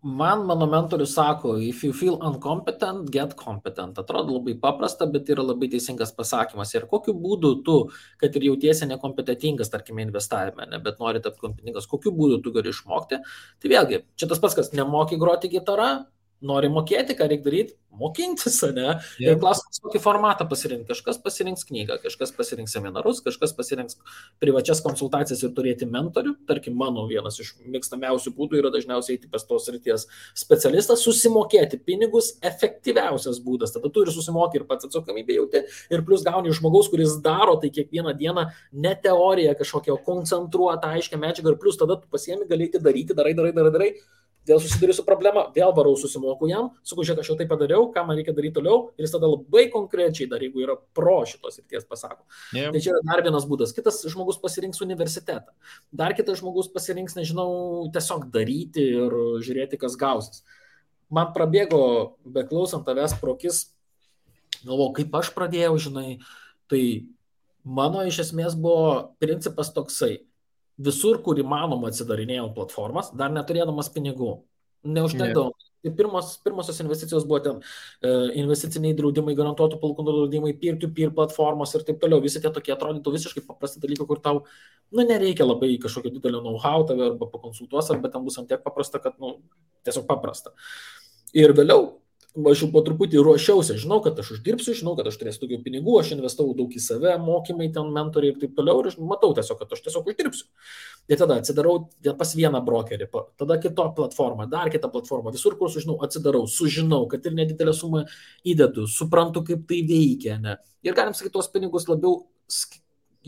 mano mentorius sako, if you feel incompetent, get competent. Atrodo labai paprasta, bet yra labai teisingas pasakymas. Ir kokiu būdu tu, kad ir jautiesi nekompetentingas, tarkime, investavime, bet nori tapti kompetentingas, kokiu būdu tu gali išmokti. Tai vėlgi, čia tas pats, kas nemoki groti gitarą, nori mokėti, ką reikia daryti, mokintis, ne? Ir klausimas, kokį formatą pasirinkti. Kažkas pasirinks knygą, kažkas pasirinks seminarus, kažkas pasirinks privačias konsultacijas ir turėti mentorių. Tarkim, mano vienas iš mėgstamiausių būdų yra dažniausiai eiti pas tos srities specialistas, susimokėti pinigus, efektyviausias būdas. Tada tu ir susimoki ir pats atsakomybę jauti ir plus gauni iš žmogaus, kuris daro tai kiekvieną dieną, ne teoriją kažkokią koncentruotą, aiškę medžiagą ir plus tada tu pasiemi, galėti daryti, darai. Vėl susiduriu su problema, vėl varau susimoku jam, sakau, žiūrėk, aš jau tai padariau, ką man reikia daryti toliau, ir jis tada labai konkrečiai dar, jeigu yra pro šitos srities, pasako. Yeah. Tai čia yra dar vienas būdas. Kitas žmogus pasirinks universitetą. Dar kitas žmogus pasirinks, nežinau, tiesiog daryti ir žiūrėti, kas gausis. Man prabėgo, beklausant tavęs prokis, galvojau, kaip aš pradėjau, žinai, tai mano iš esmės buvo principas toksai. Visur, kur įmanoma atsidarinėjau platformas, dar neturėdamas pinigų. Neužtekdavo. Tai pirmosios investicijos buvo ten investiciniai draudimai, garantuotų palūkanų draudimai, peer-to-peer platformos ir taip toliau. Visi tie tokie atrodytų visiškai paprasti dalykai, kur tau nereikia labai kažkokio didelio know-how tave arba pakonsultuos, arba ten bus ant tiek paprasta, kad tiesiog paprasta. Ir vėliau aš jau po truputį ruošiausi, žinau, kad aš uždirbsiu, žinau, kad aš turėsiu daugiau pinigų, aš investavau daug į save, mokymai, ten mentoriai ir taip toliau, ir matau tiesiog, kad aš tiesiog uždirbsiu. Ir tada atsidarau pas vieną brokerį, tada kitą platformą, dar kitą platformą, visur, kur sužinau, atsidarau, sužinau, kad ir nedidelę sumą įdedu, suprantu, kaip tai veikia, ne. Ir galim sakyti, tuos pinigus labiau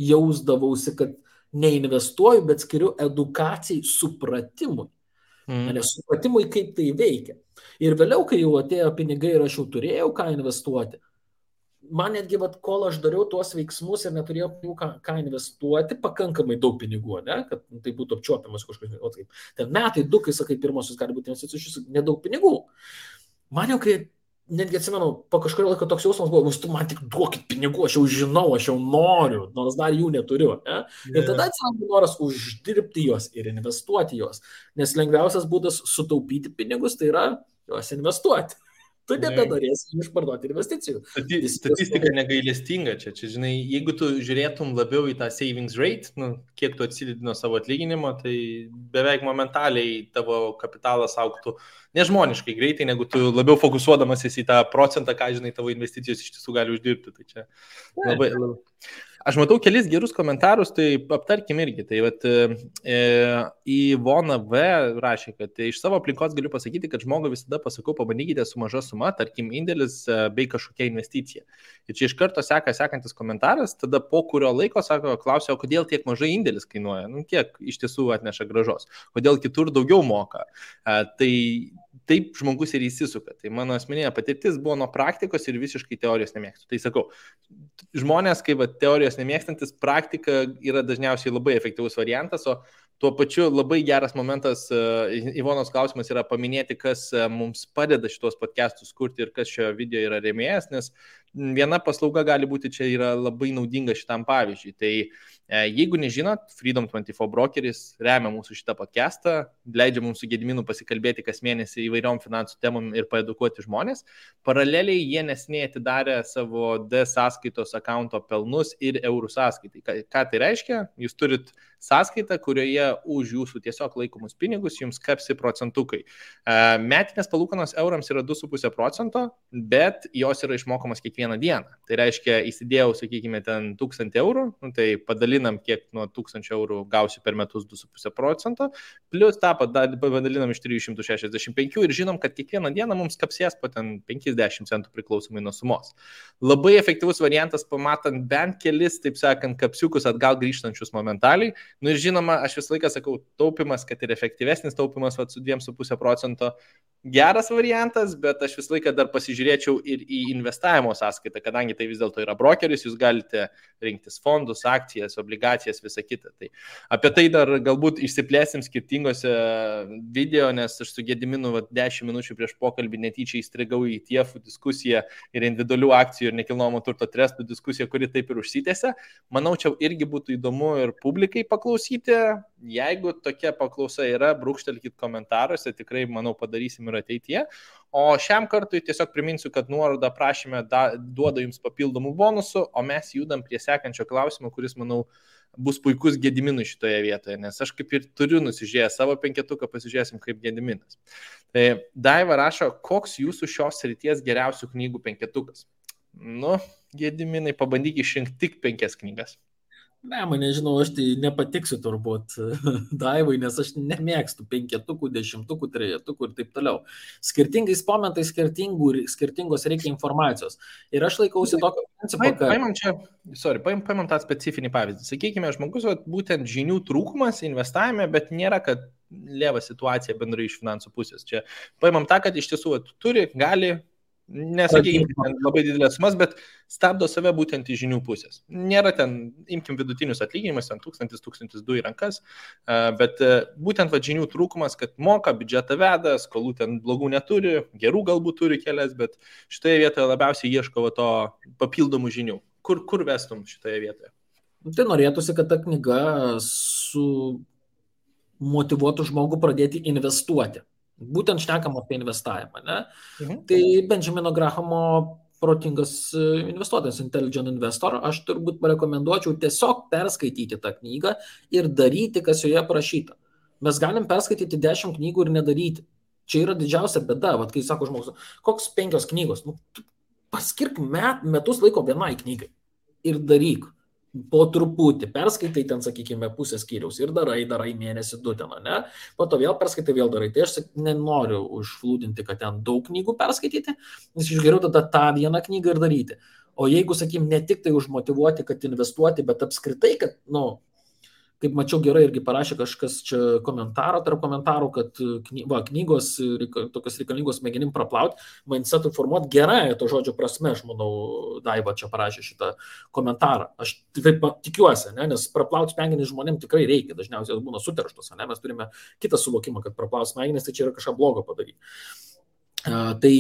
jausdavausi, kad neinvestuoju, bet skiriu edukacijai, supratimui. Nes supratimui, kaip tai veikia. Ir vėliau, kai jau atėjo pinigai ir aš jau turėjau ką investuoti, man netgi, kol aš dariau tuos veiksmus ir neturėjau pinigų ką investuoti, pakankamai daug pinigų, ne? Kad tai būtų apčiuopiamas kažkokiu. Ten metai, du, kai sakai, pirmosios gali būti investicijos, nedaug pinigų. Man jau, kai netgi atsimenu, po kažkurio laiko toks jausmas buvo, tu man tik duokit pinigų, aš jau žinau, aš jau noriu, nors dar jų neturiu. Ne? Ir tada atsiranda noras uždirbti juos ir investuoti juos. Nes lengviausias būdas sutaupyti pinigus, tai yra juos investuoti. Tu nebenorėsi išparduoti investicijų. Statistika negailestinga čia. Žinai, jeigu tu žiūrėtum labiau į tą savings rate, kiek tu atsidedi nuo savo atlyginimo, tai beveik momentaliai tavo kapitalas augtų nežmoniškai greitai, negu tu labiau fokusuodamasis į tą procentą, ką, žinai, tavo investicijos iš tiesų gali uždirbti. Tai čia labai. Aš matau kelis gerus komentarus, tai aptarkim irgi. Tai vat, Ivona V rašė, kad iš savo aplinkos galiu pasakyti, kad žmogui visada pasakau, pabandykite su maža suma, tarkim, indėlis bei kažkokia investicija. Ir čia iš karto sekantis komentaras, tada po kurio laiko klausia, o kodėl tiek mažai indėlis kainuoja, kiek iš tiesų atneša gražos, kodėl kitur daugiau moka. Tai taip žmogus ir įsisuka. Tai mano asmeninė patirtis buvo nuo praktikos ir visiškai teorijos nemėgstu. Tai sakau, žmonės, kaip teorijos nemėgstantis, praktika yra dažniausiai labai efektyvus variantas, o tuo pačiu labai geras momentas, Ivonos klausimas yra paminėti, kas mums padeda šitos podcastus kurti ir kas šio video yra rėmėjas, nes viena paslauga gali būti čia yra labai naudinga šitam pavyzdžiui. Tai jeigu nežinot, Freedom24 brokeris remia mūsų šitą podcastą, leidžia mums su Gediminu pasikalbėti kas mėnesį įvairiom finansų temom ir paedukuoti žmonės. Paraleliai jie neseniai atidarė savo D sąskaitos akaunto pelnus ir eurų sąskaitai. Ką tai reiškia? Jūs turit sąskaitą, kurioje už jūsų tiesiog laikomus pinigus jums kapsi procentukai. Metinės palūkanos eurams yra 2,5%, bet jos yra išmokamos kiekvieną dieną. Tai reiškia, įsidėjau, sakykime, ten 1000 eurų, tai padalinam, kiek nuo 1000 eurų gausiu per metus 2,5%, plus tą padalinam iš 365 ir žinom, kad kiekvieną dieną mums kapsės po ten 50 centų priklausomai nuo sumos. Labai efektyvus variantas, pamatant bent kelis, taip sakant, kapsiukus atgal grįžtančius momentaliai. Ir žinoma, aš visą laiką sakau, taupimas, kad ir efektyvesnis taupimas su 2,5% geras variantas, bet aš visą laiką dar pasižiūrėčiau ir į investavimo sąskaitą, kadangi tai vis dėlto yra brokeris, jūs galite rinktis fondus, akcijas, obligacijas, visą kitą. Tai apie tai dar galbūt išsiplėsim skirtingose video, nes aš su Gediminu 10 minučių prieš pokalbį netyčia įstrigau į TIEF diskusiją ir individualių akcijų ir nekilnojamo turto trestų diskusiją, kuri taip ir užsitęsė. Manau, čia irgi būtų įdomu ir publikai paklausyti. Jeigu tokia paklausa yra, brūkštelkit komentaruose, tikrai, manau, padarysim ir ateityje. O šiam kartui tiesiog priminsiu, kad nuorodą prašymę duoda jums papildomų bonusų, o mes judam prie sekančio klausimo, kuris, manau, bus puikus Gediminui šitoje vietoje, nes aš kaip ir turiu nusižiūrėjęs savo penketuką, pasižiūrėsim kaip Gediminas. Tai Daiva rašo, koks jūsų šios srities geriausių knygų penketukas? Gediminai, pabandyk išrinkti tik 5 knygas. Ne, nežinau, aš tai nepatiksiu turbūt Daivai, nes aš nemėgstu 5, 10, 3 ir taip toliau. Skirtingais momentais skirtingos reikia informacijos. Ir aš laikausi tokio principo, kad... Paimam tą specifinį pavyzdį. Sakykime, žmogus būtent žinių trūkumas investavime, bet nėra, kad lėva situacija bendrai iš finansų pusės. Čia paimam tą, kad iš tiesų turi, gali... Nesakykime labai didelės sumas, bet stabdo save būtent iš žinių pusės. Nėra ten, imkim vidutinius atlyginimus, ten 1000-1200 į rankas, bet būtent žinių trūkumas, kad moka, biudžetą veda, skolų ten blogų neturi, gerų galbūt turi kelias, bet šitoje vietoje labiausiai ieško to papildomų žinių. Kur vestum šitoje vietoje? Tai norėtųsi, kad ta knyga motyvuotų žmogų pradėti investuoti. Būtent šnekam apie investavimą, ne? Tai Benjamino Grahamo protingas investuotojas, Intelligent Investor, aš turbūt rekomenduočiau tiesiog perskaityti tą knygą ir daryti, kas joje parašyta. Mes galim perskaityti 10 knygų ir nedaryti. Čia yra didžiausia bėda, kai sako žmogus, koks 5 knygos, paskirk metus laiko vienai knygai ir daryk. Po truputį perskaitai ten, sakykime, pusę skyriaus ir darai mėnesį 2 ten, ne? Po to vėl perskaitai, vėl darai. Tai aš nenoriu užflūdinti, kad ten daug knygų perskaityti, nes iš geriau tada tą vieną knygą ir daryti. O jeigu, sakykim, ne tik tai užmotyvuoti, kad investuoti, bet apskritai, kad, kaip mačiau gerai irgi parašė kažkas čia tarp komentarų, kad knygos tokios reikalingos smegenim praplauti, mindsetui formuoti gerąją to žodžio prasme, aš manau, Daiva čia parašė šitą komentarą. Aš taip tikiuosi, nes praplauti smegenį žmonėm tikrai reikia, dažniausiai jos būna suterštos, mes turime kitą suvokimą, kad praplauti smegenis, tai čia yra kažką blogo padaryti. Tai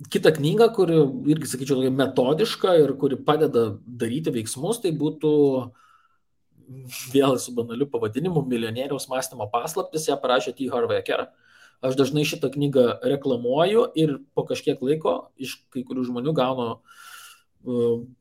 kita knyga, kuri irgi, sakyčiau, metodiška ir kuri padeda daryti veiksmus, tai būtų vėl su banaliu pavadinimu Milijonieriaus mąstymo paslaptis, ją parašė T. Harv Eker. Aš dažnai šitą knygą reklamuoju ir po kažkiek laiko iš kai kurių žmonių gaunu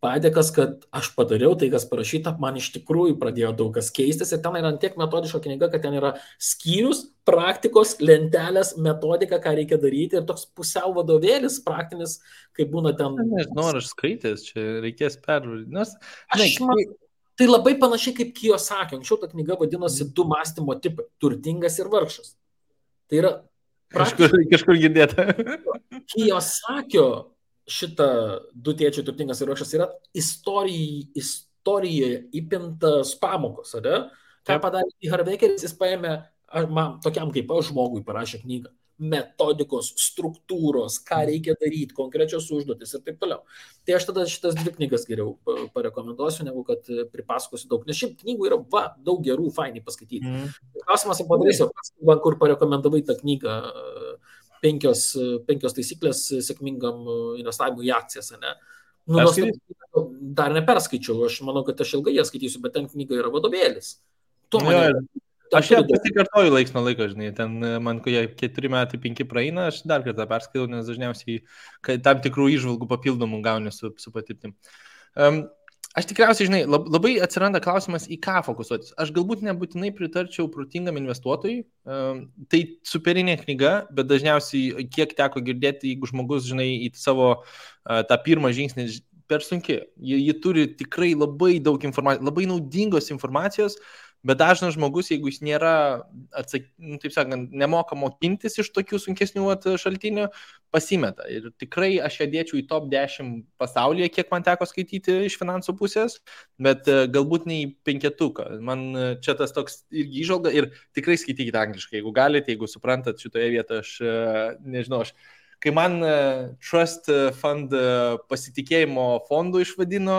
padėkas, kad aš padariau tai, kas parašyta, man iš tikrųjų pradėjo daug kas keistis ir ten yra tiek metodiška knyga, kad ten yra skyrius, praktikos, lentelės, metodika, ką reikia daryti ir toks pusiau vadovėlis praktinis, kaip būna ten. Nežinau, ar aš skaitęs, čia reikės pervaryti. Tai labai panašiai kaip Kiyosaki. Anksčiau ta knyga vadinosi Du mąstymo tipai - turtingas ir vargšas. Tai yra kažkur girdėta. Kiyosakio šitą Du tėčiai turtingas ir vargšas yra istorijoje įpintas pamokos, ar ne? Ką padarė T. Harv Ekeris, jis paėmė, man tokiam kaip aš žmogui parašė knygą. Metodikos, struktūros, ką reikia daryti, konkrečios užduotis ir taip toliau. Tai aš tada šitas 2 knygas geriau parekomenduosiu, negu kad pripasakosiu daug. Nes šiaip knygų yra daug gerų, fainai paskaityti. Klausimas, padarysiu, man kur parekomendavai tą knygą 5 taisyklės sėkmingam investavimui į akcijas, ne? Dar neperskaičiau, aš manau, kad aš ilgai ją skaitysiu, bet ten knyga yra vadovėlis. Aš ją pasikartoju laiks nuo laiko, žinai, ten man, kai 4 metai 5 praeina, aš dar kartą perskaitau, nes dažniausiai tam tikrų įžvalgų papildomų gauni su patirtim. Aš tikriausiai, žinai, labai atsiranda klausimas, į ką fokusuotis. Aš galbūt nebūtinai pritarčiau protingam investuotojui, tai superinė knyga, bet dažniausiai, kiek teko girdėti, jeigu žmogus, žinai, į savo tą pirmą žingsnį per sunki, ji turi tikrai labai daug informacijos, labai naudingos informacijos, bet dažnas žmogus, jeigu jis nėra, taip sakant, nemoka mokintis iš tokių sunkesnių šaltinių, pasimeta. Ir tikrai aš ją dėčiau į top 10 pasaulyje, kiek man teko skaityti iš finansų pusės, bet galbūt ne į 5. Man čia tas toks irgi įžvalga ir tikrai skaitykite angliškai, jeigu galite, jeigu suprantat šitoje vietoje, aš nežinau, kai man Trust Fund pasitikėjimo fondų išvadino,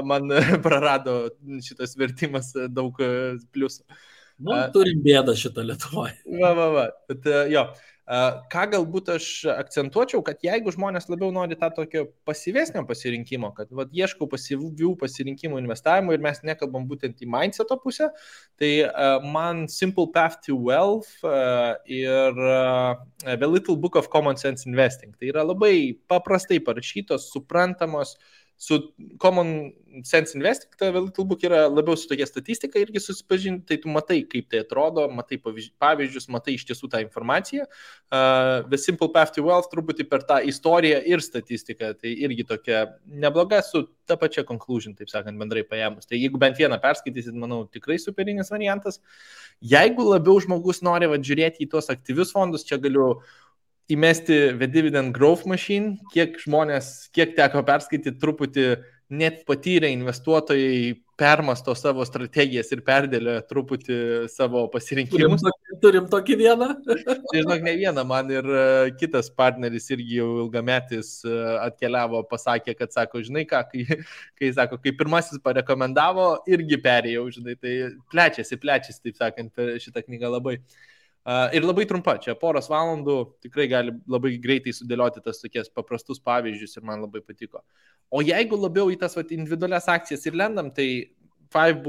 man prarado šitas vertimas daug pliusų. Turim bėdą šitą Lietuvoje. Va. Bet jo, ką galbūt aš akcentuočiau, kad jeigu žmonės labiau nori tą tokio pasyvesnio pasirinkimo, kad ieškau pasyvių pasirinkimų investavimo ir mes nekalbam būtent į mindseto pusę, tai man Simple Path to Wealth ir The Little Book of Common Sense Investing. Tai yra labai paprastai parašytos, suprantamos, su Common Sense Investing, The Little Book yra labiau su tokia statistika irgi susipažinti, tai tu matai, kaip tai atrodo, matai pavyzdžius, matai iš tiesų tą informaciją. The Simple Path to Wealth truputį per tą istoriją ir statistiką, tai irgi tokia nebloga su ta pačia conclusion, taip sakant, bendrai paėmus. Tai jeigu bent vieną perskaitysit, manau, tikrai superinis variantas. Jeigu labiau žmogus nori žiūrėti į tuos aktyvius fondus, čia galiu įmesti The Dividend Growth Machine, kiek teko perskaityti, truputį net patyrę investuotojai permasto savo strategijas ir perdėlio truputį savo pasirinkimus. Turim tokį vieną? Žinok, ne vieną, man ir kitas partneris irgi jau ilgametis atkeliavo, pasakė, kad sako, žinai ką, kai pirmasis parekomendavo, irgi perėjau, žinai, tai plečiasi, taip sakant, šitą knygą labai. Ir labai trumpa, čia poros valandų tikrai gali labai greitai sudėlioti tas tokias paprastus pavyzdžius ir man labai patiko. O jeigu labiau į tas individualias akcijas ir lendam, tai 5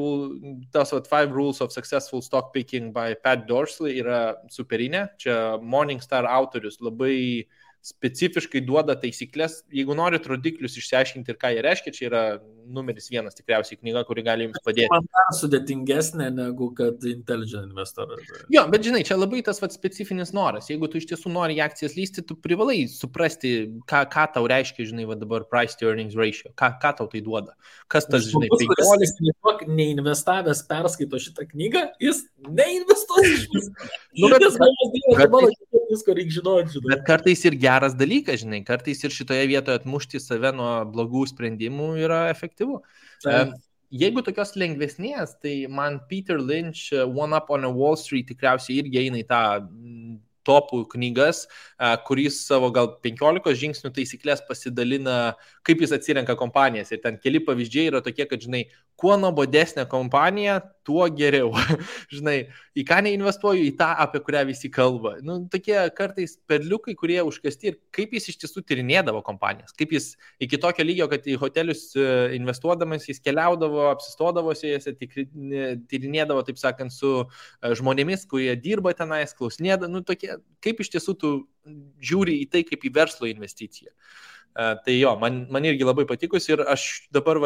Rules of Successful Stock Picking by Pat Dorsey yra superinė. Čia Morningstar autorius labai specifiškai duoda taisyklės. Jeigu norit rodiklius išsiaiškinti ir ką jie reiškia, čia yra numeris 1 tikriausiai knyga, kuri gali jums padėti. Man dar sudėtingesnė negu kad Intelligent Investor. Jo, bet žinai, čia labai tas specifinis noras. Jeigu tu iš tiesų nori į akcijas lysti, tu privalai suprasti, ką tau reiškia, žinai, dabar price to earnings ratio. Ką tau tai duoda? Kas tas, žinai, 15... Neinvestavęs perskaito šitą knygą, jis neinvestuoja iš visko reikia žinoti. Bet kartais ir geras dalykas, žinai, kartais ir šitoje vietoje atmušti save nuo blogų sprendimų yra efektyvu. Jeigu tokios lengvesnės, tai man Peter Lynch One Up on a Wall Street tikriausiai irgi eina į tą topų knygas, kuris savo gal 15 žingsnių taisyklės pasidalina, kaip jis atsirenka kompanijas. Ir ten keli pavyzdžiai yra tokie, kad, žinai, kuo nuobodesnė kompanija, tuo geriau. Žinai, į ką neinvestuoju, į tą, apie kurią visi kalba. Nu, tokie kartais perliukai, kurie užkasti ir kaip jis iš tiesų tyrinėdavo kompanijas. Kaip jis iki tokio lygio, kad į hotelius investuodamas, jis keliaudavo, apsistodavosi, jis tyrinėdavo, taip sakant, su žmonėmis, kurie dirba tenais, klausinėdavo. Nu, tokie, kaip iš tiesų tu žiūri į tai kaip į verslo investiciją. Tai jo, man irgi labai patikus ir aš dabar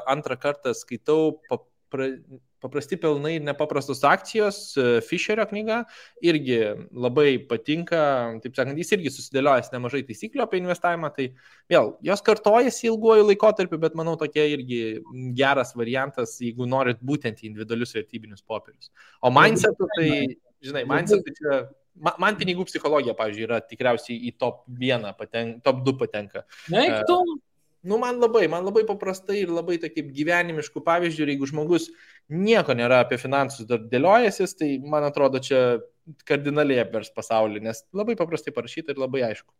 antrą kartą skaitau Paprasti pelnai ir nepaprastos akcijos, Fisherio knyga, irgi labai patinka, taip sakant, jis irgi susidėliojęs nemažai taisyklių apie investavimą, tai vėl, jos kartojasi ilguoju laikotarpiu, bet manau tokia irgi geras variantas, jeigu norit būtent į individualius vertybinius popierius. O mindsetu, tai, žinai, mindsetu čia... Man pinigų psichologija, pavyzdžiui, yra tikriausiai į top 1, top 2 patenka. Man labai paprastai ir labai kaip gyvenimiškų pavyzdžių, ir jeigu žmogus nieko nėra apie finansus dar dėliojasis, tai man atrodo čia kardinaliai apvers pasaulį, nes labai paprastai parašyta ir labai aišku.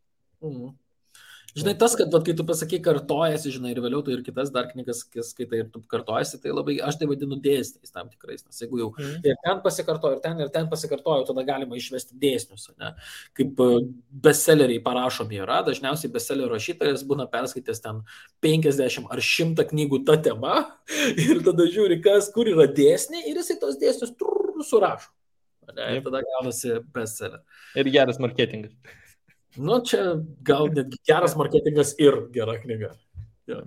Žinai, tas, kad kai tu pasakai kartojasi, žinai, ir vėliau tu ir kitas dar knygas skaitai ir tu kartojasi, tai labai, aš tai vadinu dėsniais tam tikrais, nes jeigu jau ir ten pasikartoju, ir ten pasikartoju, tada galima išvesti dėsnius, ne? Kaip bestselleriai parašomi yra, dažniausiai bestsellerio rašytojas būna perskaitęs ten 50 ar 100 knygų ta tema ir tada žiūri, kur yra dėsniai ir jisai tos dėsnius surašo. Ir tada gaunasi bestseller. Ir geras marketingas. Čia gal netgi geras marketingas ir gera knyga. Ja.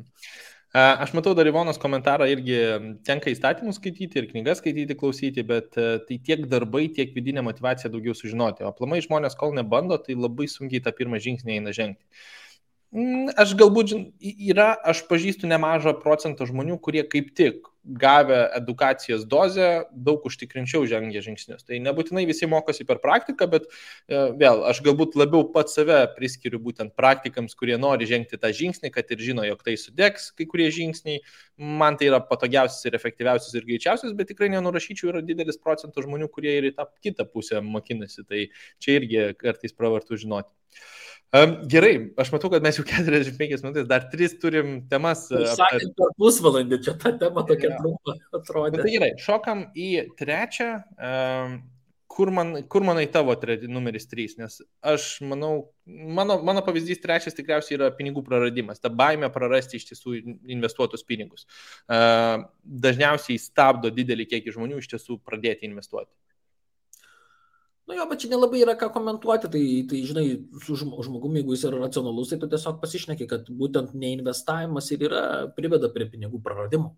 Aš matau dar Ivonos komentarą, irgi tenka įstatymus skaityti ir knygas skaityti, klausyti, bet tai tiek darbai, tiek vidinė motivacija daugiau sužinoti. O aplamai žmonės, kol nebando, tai labai sunkiai tą pirmą žingsnį eina žengti. Aš galbūt aš pažįstu nemažą procentą žmonių, kurie kaip tik gavę edukacijos dozę daug užtikrinčiau žengia žingsnius. Tai nebūtinai visi mokosi per praktiką, bet vėl, aš galbūt labiau pat save priskiriu būtent praktikams, kurie nori žengti tą žingsnį, kad ir žino, jog tai sudegs kai kurie žingsniai. Man tai yra patogiausias ir efektyviausias ir greičiausias, bet tikrai nenurašyčiau, yra didelis procentas žmonių, kurie ir į tą kitą pusę mokinasi. Tai čia irgi kartais pravartu žinoti. Gerai, aš matau, kad mes jau 45 minutės, dar 3 turim temas. Sakant, per pusvalandį čia ta tema tokia trumpa atrodė. Tai gerai, šokam į trečią, kur manai tavo numeris 3, nes aš manau, mano pavyzdys trečias tikriausiai yra pinigų praradimas, ta baimė prarasti iš tiesų investuotus pinigus. Dažniausiai stabdo didelį kiekį žmonių iš tiesų pradėti investuoti. Bet čia nelabai yra ką komentuoti, tai žinai, su žmogumi, jeigu jis yra racionalus, tai tu tiesiog pasišneki, kad būtent neinvestavimas ir priveda prie pinigų praradimo.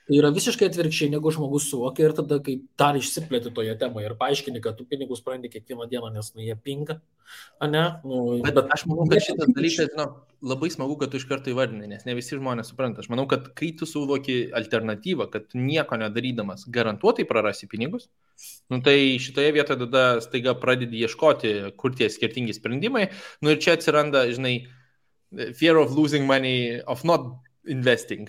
Tai yra visiškai atvirkščiai, negu žmogus suvokia ir tada, kai dar išsiplėti toje temoje ir paaiškini, kad tu pinigus prarandi kiekvieną dieną, nes jie pinga, ne? Bet aš manau, kad šitas dalykas, labai smagu, kad tu iš karto įvardini, nes ne visi žmonės supranta. Aš manau, kad kai tu suvoki alternatyvą, kad tu nieko nedarydamas garantuotai prarasi pinigus, tai šitoje vietoje tada staiga pradedi ieškoti, kur tie skirtingi sprendimai. Ir čia atsiranda, žinai, fear of losing money, of not investing.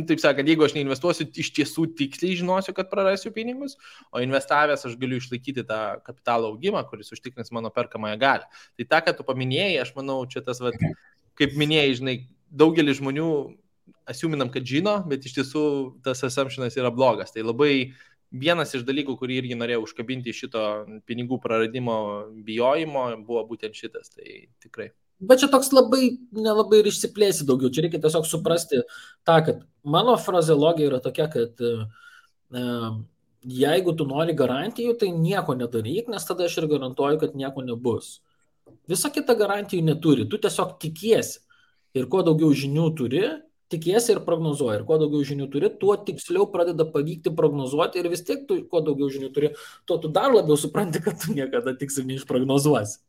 Taip sakant, jeigu aš neinvestuosiu, iš tiesų tiksliai žinosiu, kad prarasiu pinigus, o investavęs aš galiu išlaikyti tą kapitalo augimą, kuris užtikrins mano perkamąją galią. Tai tą, ką tu paminėjai, aš manau, čia tas, kaip minėjai, žinai, daugelis žmonių asiuminam, kad žino, bet iš tiesų tas assumptionas yra blogas. Tai labai vienas iš dalykų, kurį irgi norėjau užkabinti šito pinigų praradimo bijojimo, buvo būtent šitas. Tai tikrai. Bet čia toks nelabai ir išsiplėsi daugiau. Čia reikia tiesiog suprasti tą, kad mano frazeologija yra tokia, kad jeigu tu nori garantijų, tai nieko nedaryk, nes tada aš ir garantuoju, kad nieko nebus. Visa kita garantijų neturi. Tu tiesiog tikiesi. Ir kuo daugiau žinių turi, tikiesi ir prognozuoji. Ir kuo daugiau žinių turi, tuo tiksliau pradeda pavykti prognozuoti. Ir vis tiek, kuo daugiau žinių turi, tuo tu dar labiau supranti, kad tu niekada tiksliai neišprognozuosi.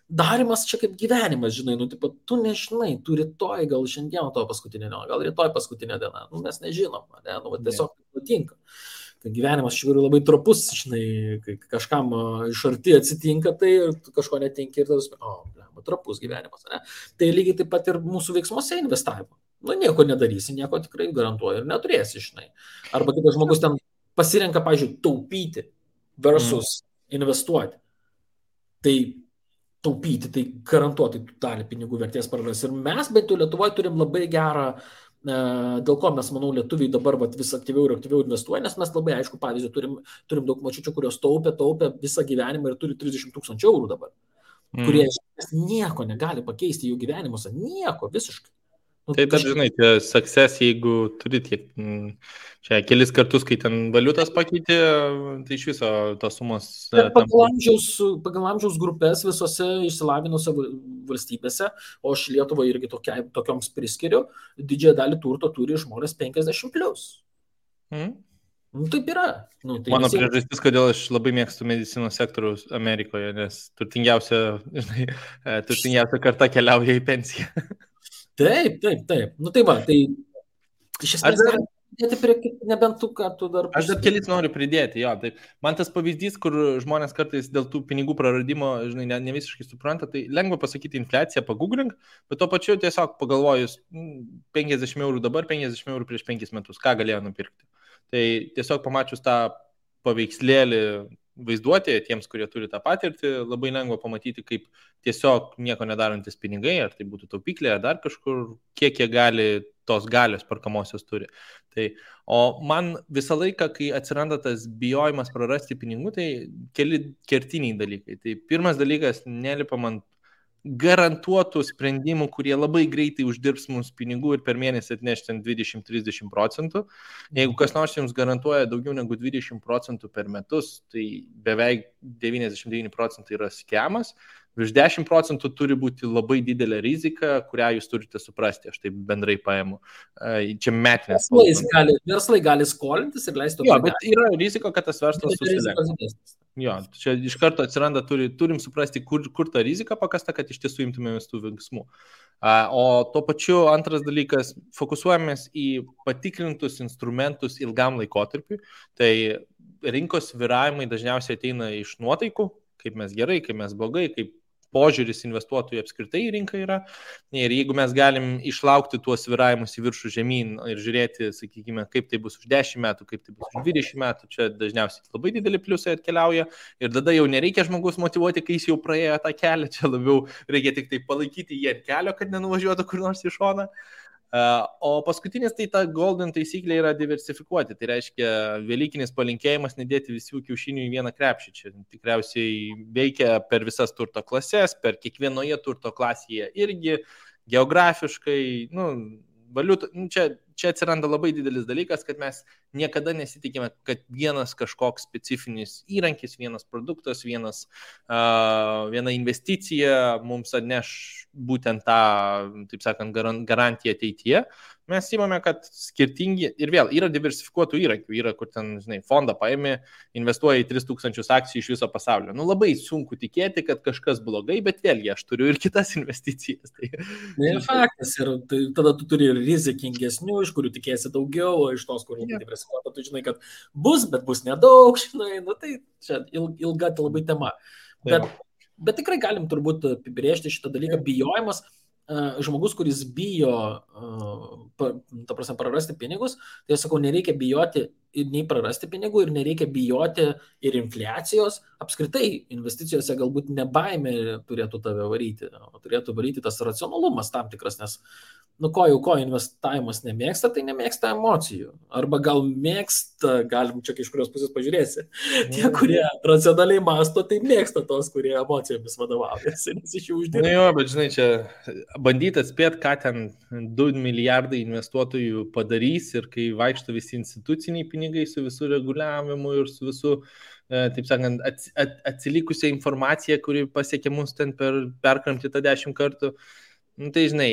Darimas čia kaip gyvenimas, žinai, tu nežinai, tu rytoj, gal šiandien to paskutinė diena, gal rytoj paskutinė diena, mes nežinom, tiesiog nutinka. Kai gyvenimas iš tikrųjų labai trapus, žinai, kai kažkam iš arti atsitinka, tai kažko netinka ir tas, trapus gyvenimas, ne? Tai lygiai taip pat ir mūsų veiksmuose investavimo. Nieko nedarysi, nieko tikrai garantuoju ir neturėsi, žinai. Arba kitas žmogus ten pasirenka, pavyzdžiui, taupyti versus investuoti. Tai taupyti, tai garantuotai dalį pinigų vertės praras. Ir mes, bent jau Lietuvoje, turim labai gerą, dėl ko mes, manau, lietuviai dabar vis aktyviau ir aktyviau investuoja, nes mes labai aišku pavyzdį turim daug močiučių, kurios taupė visą gyvenimą ir turi 30 000 eurų dabar, kurie nieko negali pakeisti jų gyvenimuose, nieko visiškai. Tai dar, žinai, tie success, jeigu turi tiek, čia kelis kartus, kai ten valiutas pakeitė, tai iš viso tos sumos. Pagal amžiaus grupės visose išsilavinuose valstybėse, o aš Lietuvą irgi tokioms priskiriu, didžiąją dalį turto turi žmonės 50+. Taip yra. Tai mano priežastis, kodėl aš labai mėgstu medicinos sektoriaus Amerikoje, nes turtingiausia karta keliauja į pensiją. Taip. Tai va, tai iš esmės nebent tu, ką tu dar... Aš dar kelis noriu pridėti, jo. Tai man tas pavyzdys, kur žmonės kartais dėl tų pinigų praradimo, žinai, ne visiškai supranta, tai lengva pasakyti infliaciją, pagooglink, bet tuo pačiu tiesiog pagalvojus 50 eurų dabar, 50 eurų prieš 5 metus, ką galėjo nupirkti. Tai tiesiog pamačius tą paveikslėlį vaizduotėje tiems, kurie turi tą patirtį, labai lengva pamatyti, kaip tiesiog nieko nedarantis pinigai, ar tai būtų taupyklė, ar dar kažkur, kiek jie gali tos galios perkamosios turi. Tai, o man visą laiką, kai atsiranda tas bijojimas prarasti pinigų, tai keli kertiniai dalykai. Tai pirmas dalykas, nelipam ant garantuotų sprendimų, kurie labai greitai uždirbs mums pinigų ir per mėnesį atneš 20-30%. Jeigu kas nors jums garantuoja daugiau negu 20% per metus, tai beveik 99% yra skemas. Virš 10% turi būti labai didelė rizika, kurią jūs turite suprasti, aš taip bendrai paimu. Čia metinės. Verslai gali skolintis ir leisti. Jo, bet yra rizika, kad tas verslas susilenks. Jo, čia iš karto atsiranda, turim suprasti, kur ta rizika pakasta, kad iš tiesų imtumėmės tų veiksmų. O tuo pačiu antras dalykas, fokusuojamės į patikrintus instrumentus ilgam laikotarpiui. Tai rinkos svyravimai dažniausiai ateina iš nuotaikų, kaip mes gerai, kaip mes blogai, kaip požiūris investuotojų apskritai į rinką yra. Ir jeigu mes galim išlaukti tuos svyravimus į viršų žemyn ir žiūrėti, sakykime, kaip tai bus už 10 metų, kaip tai bus už 20 metų, čia dažniausiai labai dideli pliusai atkeliauja. Ir tada jau nereikia žmogus motyvuoti, kai jis jau praėjo tą kelią, čia labiau reikia tik tai palaikyti jį ant kelio, kad nenuvažiuotų kur nors į šoną. O paskutinis tai ta golden taisyklė yra diversifikuoti. Tai reiškia velykinis palinkėjimas nedėti visų kiaušinių į vieną krepšį. Čia tikriausiai veikia per visas turto klases, per kiekvienoje turto klasėje irgi geografiškai, valiutų. Čia atsiranda labai didelis dalykas, kad mes niekada nesitikime, kad vienas kažkoks specifinis įrankis, vienas produktas, viena investicija mums atneš būtent tą, taip sakant, garantiją ateityje. Mes įmame, kad skirtingi, ir vėl yra diversifikuotų įrankių, yra kur ten, žinai, fondą paėmė, investuoja į 3000 akcijų iš viso pasaulio. Labai sunku tikėti, kad kažkas blogai, bet vėlgi aš turiu ir kitas investicijas. Tai faktas, ir tai, tada tu turi ir rizikingesnių, iš kurių tikėsi daugiau, o iš tos, kur diversifikuota, tu žinai, kad bus, bet bus nedaug, žinai, tai čia ilga labai tema. Bet tikrai galim turbūt apibrėžti šitą dalyką, bijojimas. Žmogus, kuris bijo, prarasti pinigus, tai aš sakau, nereikia bijoti ir nei prarasti pinigų, ir nereikia bijoti ir infliacijos. Apskritai, investicijose galbūt ne baimė turėtų tave varyti, o turėtų varyti tas racionalumas tam tikras, nes ko investavimas nemėgsta, tai nemėgsta emocijų. Arba gal mėgsta, galim čia iš kurios pusės pažiūrėsi. Tie, kurie racionaliai masto, tai mėgsta tos, kurie emocijomis vadovaujasi, nes iš jų uždirba. Jo, bet žinai, čia bandyti atspėti, ką ten 2 milijardai investuotojų padarys ir kai vaikšto visi instituciniai pinigai su visų reguliavimu ir su visų, taip sakant, atsilikusią informaciją, kuri pasiekia mus ten perkramti tą 10 kartų. Tai žinai,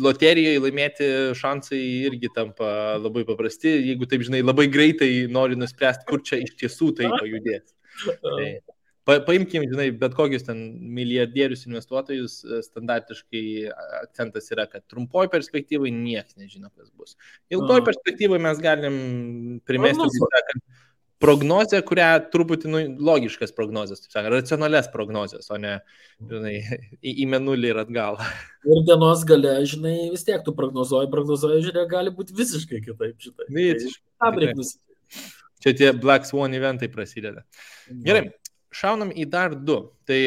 loterijoje laimėti šansai irgi tampa labai paprasti, jeigu taip, žinai, labai greitai nori nuspręsti, kur čia iš tiesų tai pajudės. Tai paimkim, žinai, bet kokius ten milijardierius investuotojus, standartiškai akcentas yra, kad trumpoj perspektyvai niekas nežino, kas bus. Ilgoj perspektyvai mes galim primesti, kad prognozę, kurią truputį logiškas prognozės, taip sakant, racionalias prognozės, o ne, žinai, į mėnulį ir atgal. Ir dienos gale, žinai, vis tiek tu prognozuoji, žiūrėk, gali būti visiškai kitaip, žinai. Visiškai. Čia tie Black Swan eventai prasideda. Gerai, šaunam į dar 2. Tai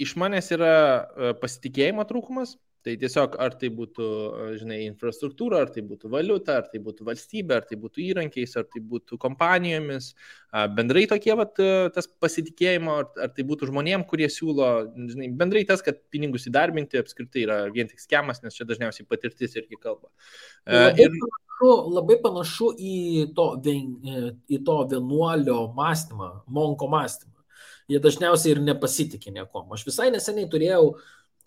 iš manęs yra pasitikėjimo trūkumas. Tai tiesiog ar tai būtų, žinai, infrastruktūra, ar tai būtų valiuta, ar tai būtų valstybė, ar tai būtų įrankiais, ar tai būtų kompanijomis, bendrai tokie, tas pasitikėjimo, ar tai būtų žmonėm, kurie siūlo, žinai, bendrai tas, kad pinigus įdarbinti apskritai yra vien tik skemas, nes čia dažniausiai patirtis irgi kalba. Labai panašu į to vienuolio mąstymą, monko mąstymą. Jie dažniausiai ir nepasitikė niekom. Aš visai neseniai turėjau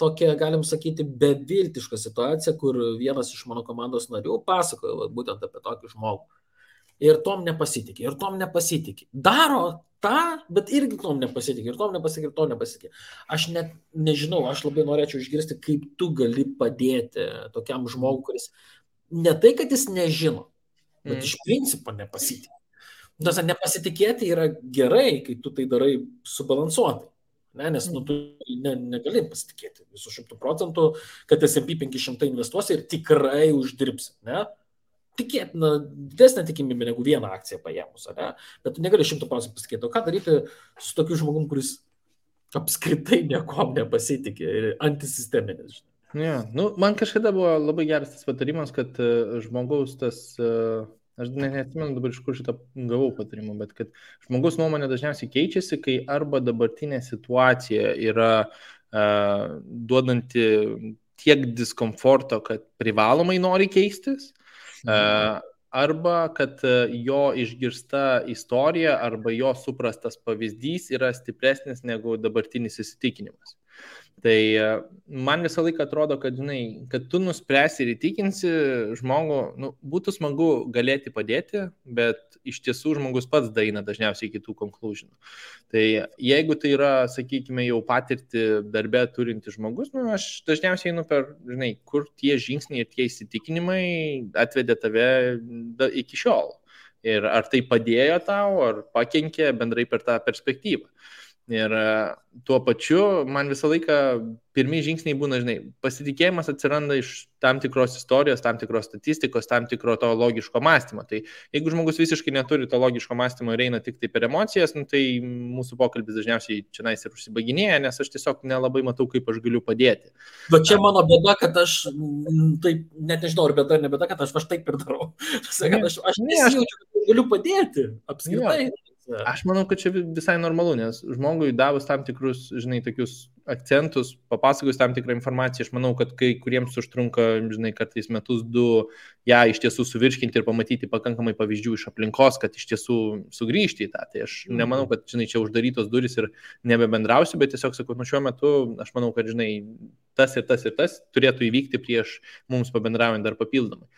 tokia, galim sakyti, beviltiška situacija, kur vienas iš mano komandos narių pasakojo būtent apie tokį žmogų. Ir tom nepasitikė. Daro tą, bet irgi tom nepasitikė. Ir tom nepasitikė. Aš net nežinau, aš labai norėčiau išgirsti, kaip tu gali padėti tokiam žmogui, kuris ne tai, kad jis nežino, bet iš principo nepasitikė. Nepasitikėti yra gerai, kai tu tai darai subalansuotai. Nes tu negali pasitikėti visų 100%, kad S&P 500 investuosi ir tikrai uždirbsi. Tikėtina didesnė tikimybė negu vieną akciją paėmus, bet tu negali 100% pasitikėti. O ką daryti su tokiu žmogum, kuris apskritai niekom nepasitikė ir antisisteminis? Man kažkada buvo labai geras tas patarimas, kad žmogaus tas... Aš neatsimenu dabar, iš kur šitą gavau patarimą, bet kad žmogus nuomonė dažniausiai keičiasi, kai arba dabartinė situacija yra duodanti tiek diskomforto, kad privalomai nori keistis, arba kad jo išgirsta istorija arba jo suprastas pavyzdys yra stipresnis negu dabartinis įsitikinimas. Tai man visą laiką atrodo, kad, žinai, kad tu nuspręsi ir įtikinsi žmogų, būtų smagu galėti padėti, bet iš tiesų žmogus pats daeina dažniausiai iki tų conclusionų. Tai jeigu tai yra, sakykime, jau patirti darbę turinti žmogus, aš dažniausiai einu per, žinai, kur tie žingsniai ir tie įsitikinimai atvedė tave iki šiol. Ir ar tai padėjo tau, ar pakenkė bendrai per tą perspektyvą. Ir tuo pačiu man visą laiką pirmi žingsniai būna, žinai, pasitikėjimas atsiranda iš tam tikros istorijos, tam tikros statistikos, tam tikro to logiško mąstymo. Tai jeigu žmogus visiškai neturi to logiško mąstymo ir eina tik tai per emocijas, tai mūsų pokalbis dažniausiai čia nais ir užsibaginėja, nes aš tiesiog nelabai matau, kaip aš galiu padėti. Bet čia mano bėda, kad aš taip, net nežinau, ar bėda ar ne bėda, kad aš taip ir darau. Aš nesijaučiu, kad galiu padėti apskritai. Aš manau, kad čia visai normalu, nes žmogui davus tam tikrus, žinai, tokius akcentus, papasakojus tam tikrą informaciją, aš manau, kad kai kuriems užtrunka, žinai, kartais metus, 2, ją iš tiesų suvirškinti ir pamatyti pakankamai pavyzdžių iš aplinkos, kad iš tiesų sugrįžti į tą. Tai aš nemanau, kad, žinai, čia uždarytos durys ir nebebendrausiu, bet tiesiog sakau, šiuo metu aš manau, kad, žinai, tas ir tas turėtų įvykti prieš mums pabendraujant dar papildomai.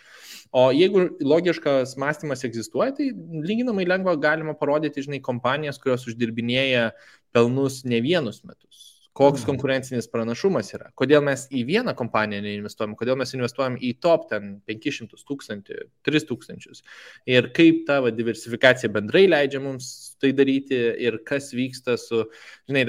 O jeigu logiškas mąstymas egzistuoja, tai lyginamai lengva galima parodyti, žinai, kompanijas, kurios uždirbinėja pelnus ne vienus metus. Koks konkurencinis pranašumas yra. Kodėl mes į vieną kompaniją neinvestuojam, kodėl mes investuojam į top 500 000, 3000. Ir kaip ta diversifikacija bendrai leidžia mums tai daryti ir kas vyksta su, žinai,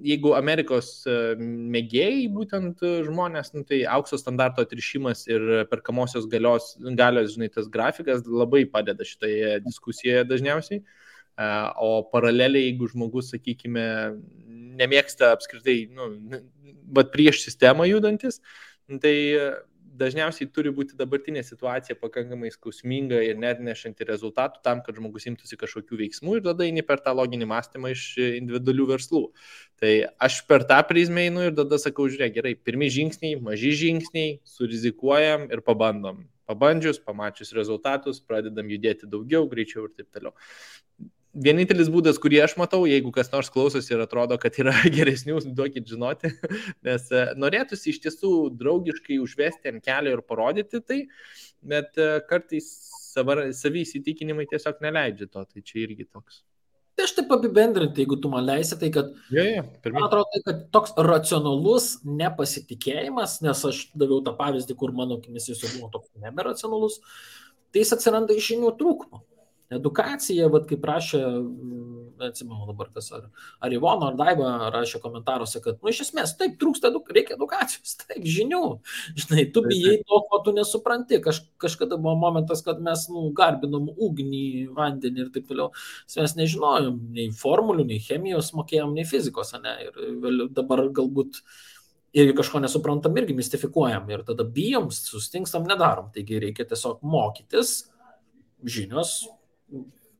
jeigu Amerikos mėgėjai būtent žmonės, tai aukso standarto atrišimas ir perkamosios galios, žinai, tas grafikas labai padeda šitoje diskusijoje dažniausiai. O paraleliai, jeigu žmogus, sakykime, nemėgsta apskritai, bet prieš sistemą judantis, tai dažniausiai turi būti dabartinė situacija pakankamai skausminga ir neatnešanti rezultatų tam, kad žmogus imtųsi kažkokių veiksmų ir tada eini per tą loginį mąstymą iš individualių verslų. Tai aš per tą prizmę einu ir tada sakau, žiūrėk, gerai, pirmi žingsniai, maži žingsniai, surizikuojam ir pabandom. Pabandžius, pamačius rezultatus, pradedam judėti daugiau, greičiau ir taip toliau. Vienintelis būdas, kurį aš matau, jeigu kas nors klausosi ir atrodo, kad yra geresnių, duokit žinoti, nes norėtųsi iš tiesų draugiškai užvesti ant kelio ir parodyti tai, bet kartais savi įsitikinimai tiesiog neleidžia to, tai čia irgi toks. Tai aš taip apibendrinti, jeigu tu man leisi, tai kad, man atrodo, kad toks racionalus nepasitikėjimas, nes aš daviau tą pavyzdį, kur mano akimis jis buvo toks neberacionalus, tai jis atsiranda iš žinių trūkumo. Edukacija, kaip rašė, atsimenu dabar kas, ar Ivono, ar Daiva rašė komentaruose, kad, iš esmės, taip, trūksta, reikia edukacijos, taip, žinių. Žinai, tu bijai to, ko tu nesupranti. Kažkada buvo momentas, kad mes, garbinom ugnį, vandenį ir taip toliau. Mes nežinojom nei formulių, nei chemijos mokėjom, nei fizikos, ne? Ir dabar galbūt Ir kažko nesuprantam irgi mistifikuojam ir tada bijom, sustingstam, nedarom. Taigi reikia tiesiog mokytis, žinios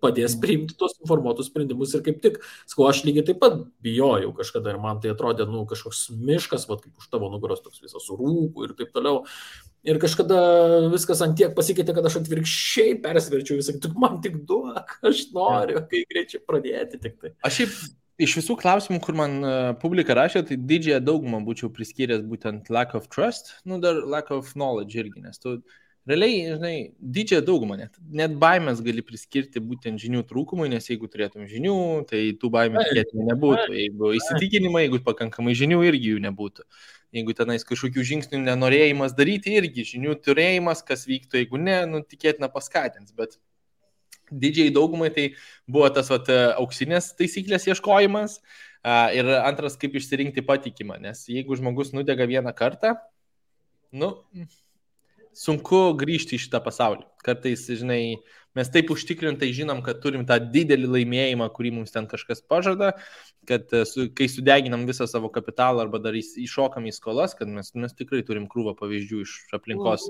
padės priimti tos informuotus sprendimus ir kaip tik, sakau, aš lygiai taip pat bijojau kažkada ir man tai atrodė, kažkoks miškas, vat, kaip už tavo nugaros toks visas rūkų ir taip toliau. Ir kažkada viskas ant tiek pasikeitė, kad aš atvirkščiai persverčiau visą, tik man tik duok, aš noriu, kai greičiau pradėti tik tai. Aš šiaip iš visų klausimų, kur man publika rašė, tai didžiąją daugumą būčiau priskyręs būtent lack of trust, dar lack of knowledge irgi, nes tu realiai, žinai, didžiąją daugumą net baimės gali priskirti būtent žinių trūkumui, nes jeigu turėtum žinių, tai tų baimių tikėtinai nebūtų. Jeigu įsitikinimai, jeigu pakankamai žinių, irgi jų nebūtų. Jeigu tenais kažkokių žingsnių nenorėjimas daryti, irgi žinių turėjimas, kas vyktų, jeigu ne, tikėtina paskatins. Bet didžiai daugumai tai buvo tas auksinės taisyklės ieškojimas ir antras, kaip išsirinkti patikimą. Nes jeigu žmogus nudega vieną kartą, sunku grįžti į šitą pasaulį. Kartais, žinai, mes taip užtikrintai žinom, kad turim tą didelį laimėjimą, kurį mums ten kažkas pažada, kad kai sudeginam visą savo kapitalą arba dar iššokam į skolas, kad mes tikrai turim krūvą pavyzdžių iš aplinkos,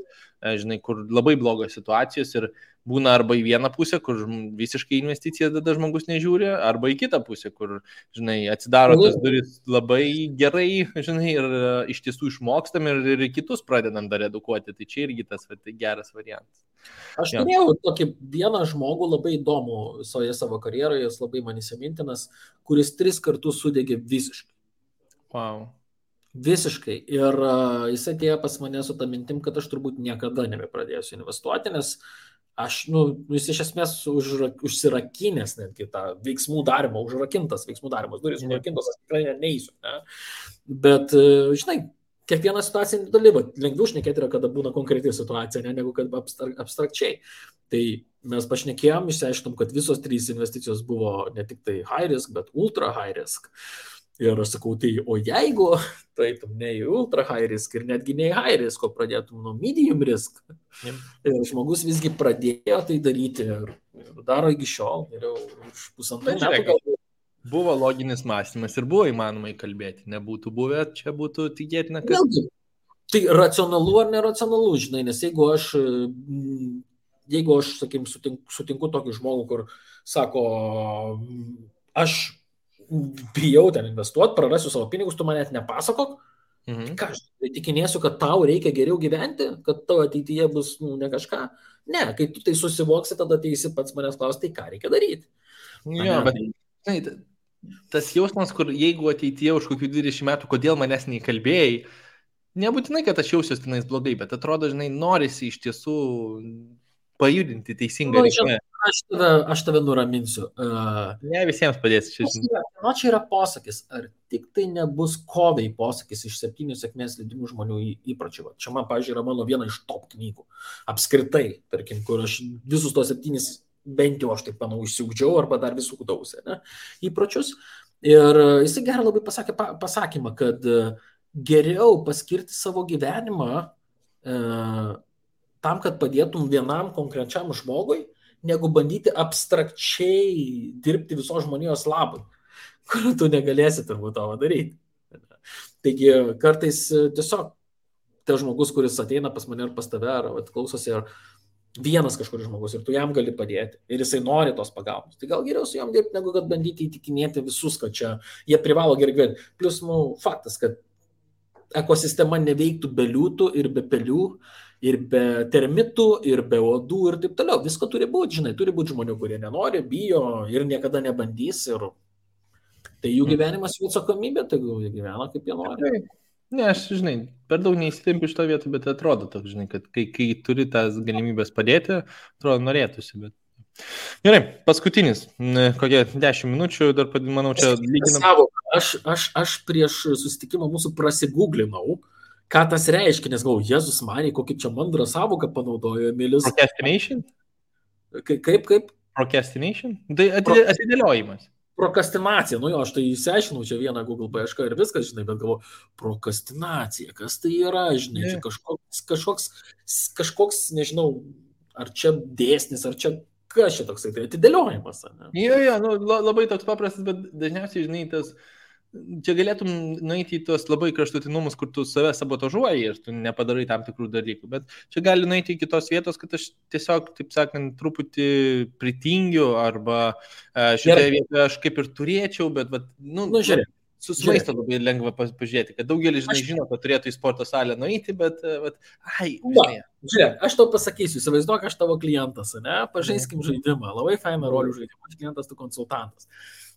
žinai, kur labai blogos situacijos ir būna arba į vieną pusę, kur visiškai investicijas tada žmogus nežiūri, arba į kitą pusę, kur, žinai, atsidaro tas duris labai gerai, žinai, ir iš tiesų išmokstam ir kitus pradedam dar edukuoti. Tai čia irgi tas geras variantas. Aš turėjau tokį vieną žmogų labai įdomų visoje savo karjeroje, jis labai man įsimintinas, kuris 3 kartus sudegė visiškai. Wow. Visiškai. Ir jis atėjo pas mane su tą mintim, kad aš turbūt niekada nebepradėsiu investuoti, nes aš, jis iš esmės užsirakinęs netgi tą veiksmų darimą, užrakintas veiksmų darimas, durys užrakintos, aš tikrai neįsiu. Ne? Bet, žinai, kiekviena situacija individuali, lengviau šnekėti yra, kada būna konkreti situacija, negu kad abstrakčiai. Tai mes pašnekėjom, išsiaiškinom, kad visos 3 investicijos buvo ne tik tai high risk, bet ultra high risk. Ir aš sakau, tai o jeigu taitum ne į ultra high risk ir netgi ne į high risk, o pradėtum nuo medium risk, ir žmogus visgi pradėjo tai daryti ir daro iki šiol, ir jau už 1,5 metų galbūt. Buvo loginis mąstymas ir buvo įmanoma įkalbėti, nebūtų buvę, čia būtų tikėtina, kad... Vėlgi, tai racionalu ar neracionalu, žinai, nes jeigu aš sakykim, sutinku tokį žmogų, kur sako, aš bijau ten investuoti, prarasiu savo pinigus, tu man net nepasakok, ką aš tikinėsiu, kad tau reikia geriau gyventi, kad tavo ateityje bus ne kažką. Ne, kai tu tai susivoksi, tada ateisi pats manęs klausti, tai ką reikia daryti. Jo, bet tas jausmas, kur jeigu ateityje už kokių 20 metų, kodėl manęs neįkalbėjai, nebūtinai, kad aš jausiuosi tenais blogai, bet atrodo, žinai, norisi iš tiesų pajudinti teisingą reikmę. Aš tave nuraminsiu. Ne visiems padėsiu. Čia yra posakis, ar tik tai nebus kovai posakis iš 7 sėkmės leidimų žmonių įpročių. Čia man, pavyzdžiui, yra mano viena iš top knygų. Apskritai, tarkim, kur aš visus tos 7 bent jau aš taip manau išsiugdžiau arba dar visų kudausi įpročius. Ir jisai gerai labai pasakė pasakymą, kad geriau paskirti savo gyvenimą tam, kad padėtum vienam konkrečiam žmogui, negu bandyti abstrakčiai dirbti visos žmonijos labui, kur tu negalėsi turbūt to daryti. Taigi kartais tiesiog tas žmogus, kuris ateina pas mane ar pas tave, ar klausosi, ar vienas kažkuris žmogus ir tu jam gali padėti ir jisai nori tos pagalbos. Tai gal geriau su jam dirbti, negu kad bandyti įtikinėti visus, kad čia jie privalo gerai gyventi. Plius, faktas, kad ekosistema neveiktų be liūtų ir be pelių, ir be termitų, ir be uodų ir taip toliau. Visko turi būti, žinai, turi būti žmonių, kurie nenori, bijo ir niekada nebandys. Ir tai jų gyvenimas, jų atsakomybė, tai jie gyvena kaip jie nori. Ne, aš, žinai, per daug neįsitempiu šito vietą, bet atrodo toks, žinai, kad kai turi tas galimybės padėti, atrodo, norėtųsi, bet... Gerai, paskutinis, kokie 10 minučių, dar, manau, čia lyginam. Aš prieš susitikimą mūsų prasigūglinau, ką tas reiškia, nes galvoju, Jėzus Marija, kokį čia mandrą savoką panaudojo Emilis. Procrastination? Kaip? Procrastination? Tai atidėliojimas. Prokrastinacija, aš tai įsiaiškinau čia vieną Google paiešką ir viskas, žinai, bet galvoju, prokrastinacija, kas tai yra, žinai, čia kažkoks, nežinau, ar čia dėsnis, ar čia kas čia toksai, tai atidėliojimas. Jo, labai toks paprastas, bet dažniausiai, žinai, tas čia galėtum nueiti į tuos labai kraštutinumus, kur tu save sabotažuoji ir tu nepadarai tam tikrų dalykų, bet čia gali nueiti į kitos vietos, kad aš tiesiog, taip sakant, truputį pritingiu arba šitoje vietoje aš kaip ir turėčiau, bet žiūrėk. Susimaisto labai lengva pažiūrėti, kad daugelis žino, kad turėtų į sporto salę nueiti, bet žiūrėk, aš tau pasakysiu, įsivaizduok, aš tavo klientas, ne, pažaiskim žaidimą, labai fainą rolių žaidimą, aš klientas, tu konsultantas.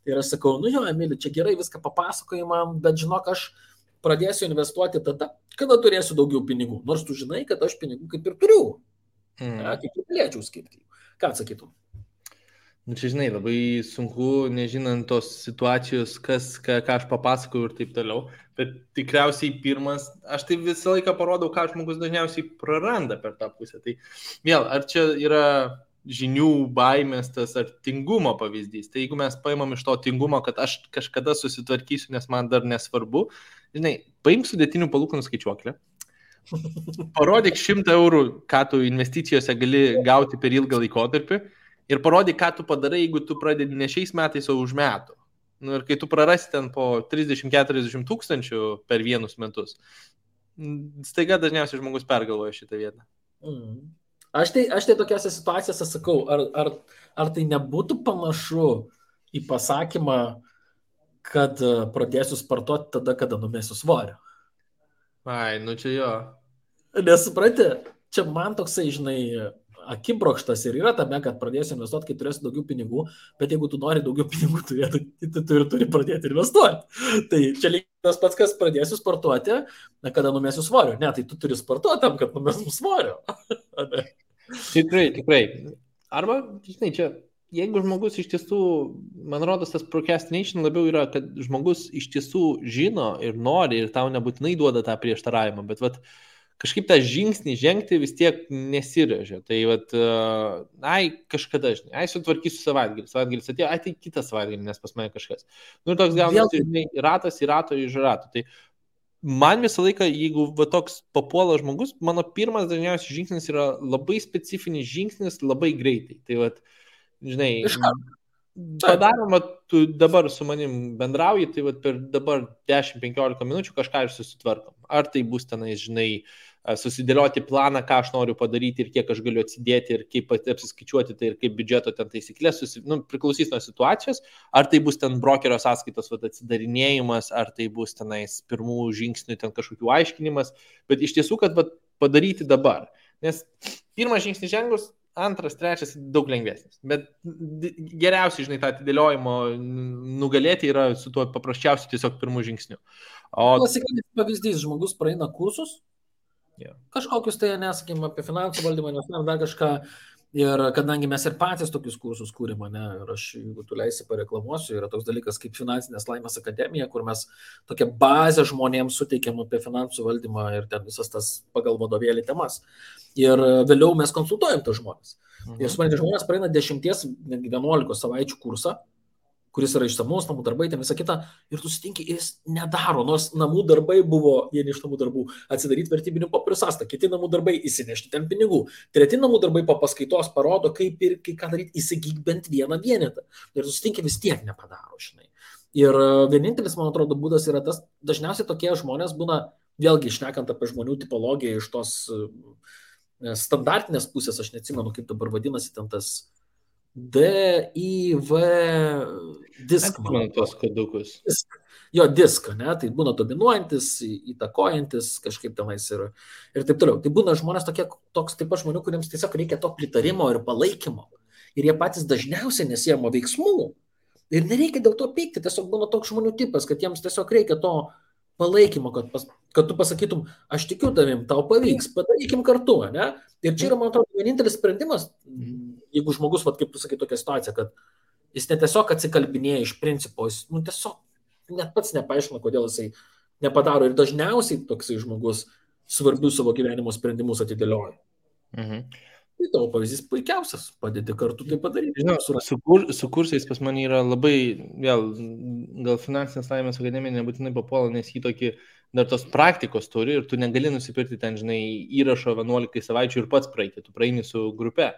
Ir aš sakau, Emili, čia gerai viską papasakojai man, bet žinok, aš pradėsiu investuoti tada, kada turėsiu daugiau pinigų, nors tu žinai, kad aš pinigų kaip ir turiu, kaip ir galėčiau skirti. Ką atsakytum? Čia, žinai, labai sunku, nežinant tos situacijos, ką aš papasakoju ir taip toliau, bet tikriausiai pirmas, aš tai visą laiką parodau, ką žmogus dažniausiai praranda per tą pusę. Tai vėl, ar čia yra žinių baimės tas ar tingumo pavyzdys, tai jeigu mes paimam iš to tingumo, kad aš kažkada susitvarkysiu, nes man dar nesvarbu, žinai, paimk sudėtinių palūkanų skaičiuoklę, parodyk 100 eurų, ką tu investicijose gali gauti per ilgą laikotarpį, ir parodyk, ką tu padarai, jeigu tu pradedi ne šiais metais, o už metų. Ir kai tu prarasi ten po 30-40 tūkstančių per vienus metus, staiga dažniausiai žmogus pergalvoja šitą vietą. Aš tai tokiose situacijose sakau, ar tai nebūtų panašu į pasakymą, kad pradėsiu sportuoti tada, kada numesiu svorio? Čia jo. Nesupranti, čia man toksai, žinai, akibrokštas ir yra tame, kad pradėsiu investuoti, kai turėsiu daugiau pinigų, bet jeigu tu nori daugiau pinigų turėti, tu turi pradėti investuoti. Tai čia lygiai tas pats, kas pradėsiu sportuoti, kada numesiu svorio. Ne, tai tu turi sportuoti tam, kad numesiu svorio. Tikrai. Arba, žinai, čia, jeigu žmogus iš tiesų, man rodos, tas procrastination labiau yra, kad žmogus iš tiesų žino ir nori ir tau nebūtinai duoda tą prieštaravimą, bet kažkaip tą žingsnį žengti vis tiek nesirėžia. Tai kažkada, žinai, sutvarkysiu savaitgalis atėjo, tai kitą savaitgalį, nes pas mane kažkas. Ir toks gaunasi, žinai, ratas į rato iš rato. Tai man visą laiką, jeigu toks papuola žmogus, mano pirmas dažniausiai žingsnis yra labai specifinis žingsnis, labai greitai. Tai žinai, padaroma, tu dabar su manim bendrauji, tai per dabar 10-15 minučių kažką ir susitvarkom. Ar tai bus tenais, žinai, susidėlioti planą, ką aš noriu padaryti ir kiek aš galiu atsidėti ir kaip apsiskaičiuoti tai ir kaip biudžeto ten taisyklės, priklausys nuo situacijos, ar tai bus ten brokerio sąskaitos atsidarinėjimas, ar tai bus tenais pirmų žingsnių ten kažkokių aiškinimas, bet iš tiesų, kad padaryti dabar. Nes pirmas žingsnis žengus, antras, trečias daug lengvesnis, bet geriausiai, žinai, tą atidėliojimo nugalėti yra su tuo paprasčiausiu tiesiog pirmų žingsnių. Klasikinis pavyzdys, žmogus praeina kursus, kažkokius tai, nesakym, apie finansų valdymą, nes dar kažką, ir kadangi mes ir patys tokius kursus kūrėme, ir aš, jeigu tu leisi, pareklamuosiu, yra toks dalykas kaip Finansinės laimės akademija, kur mes tokią bazę žmonėms suteikiam apie finansų valdymą ir ten visas tas pagal vadovėlį temas. Ir vėliau mes konsultuojam tos žmonės. Ir suprantate, žmonės praeina 10-11 savaičių kursą, kuris yra išsamus, namų darbai, ten visą kitą, ir tu sutinki, ir jis nedaro, nors namų darbai buvo, vieni iš namų darbų, atsidaryti vertybinių popierių sąskaitą, kiti namų darbai įsinešti ten pinigų, treti namų darbai po paskaitos parodo, kaip ir ką daryti, įsigyk bent vieną vienetą. Ir tu sutinki, vis tiek nepadaro, žinai. Ir vienintelis, man atrodo, būdas yra tas, dažniausiai tokie žmonės būna, vėlgi šnekant apie žmonių tipologiją iš tos standartinės pusės, aš neatsimenu, kaip dabar vadinasi ten tas DIV disk. Man tos kodukus. Jo, diską, ne, tai būna dominuojantis, įtakojantis kažkaip tenais ir taip toliau. Tai būna žmonės toks taip pat žmonių, kuriems tiesiog reikia to pritarimo ir palaikymo. Ir jie patys dažniausiai nesiema veiksmų. Ir nereikia dėl to pykti, tiesiog būna toks žmonių tipas, kad jiems tiesiog reikia to palaikymo, kad tu pasakytum, aš tikiu tavim, tau pavyks, padarykim kartu, ne? Ir čia yra, man atrodo, vienintelis sprendimas, jeigu žmogus, kaip tu sakai, tokia situacija, kad jis ne tiesiog atsikalbinėja iš principo, jis tiesiog net pats nepaaiškina, kodėl jisai nepadaro. Ir dažniausiai toksai žmogus svarbius savo gyvenimo sprendimus atidėlioja. Tai tavo pavyzdys puikiausias, padėti kartu tai padaryti. Žinau, su kursais pas mane yra labai, vėl, gal Finansinės laimės akademija nebūtinai papuola, nes jį tokį dar tos praktikos turi ir tu negali nusipirkti ten, žinai, įrašo 11 savaičių ir pats praeiti, tu praeini su grupe.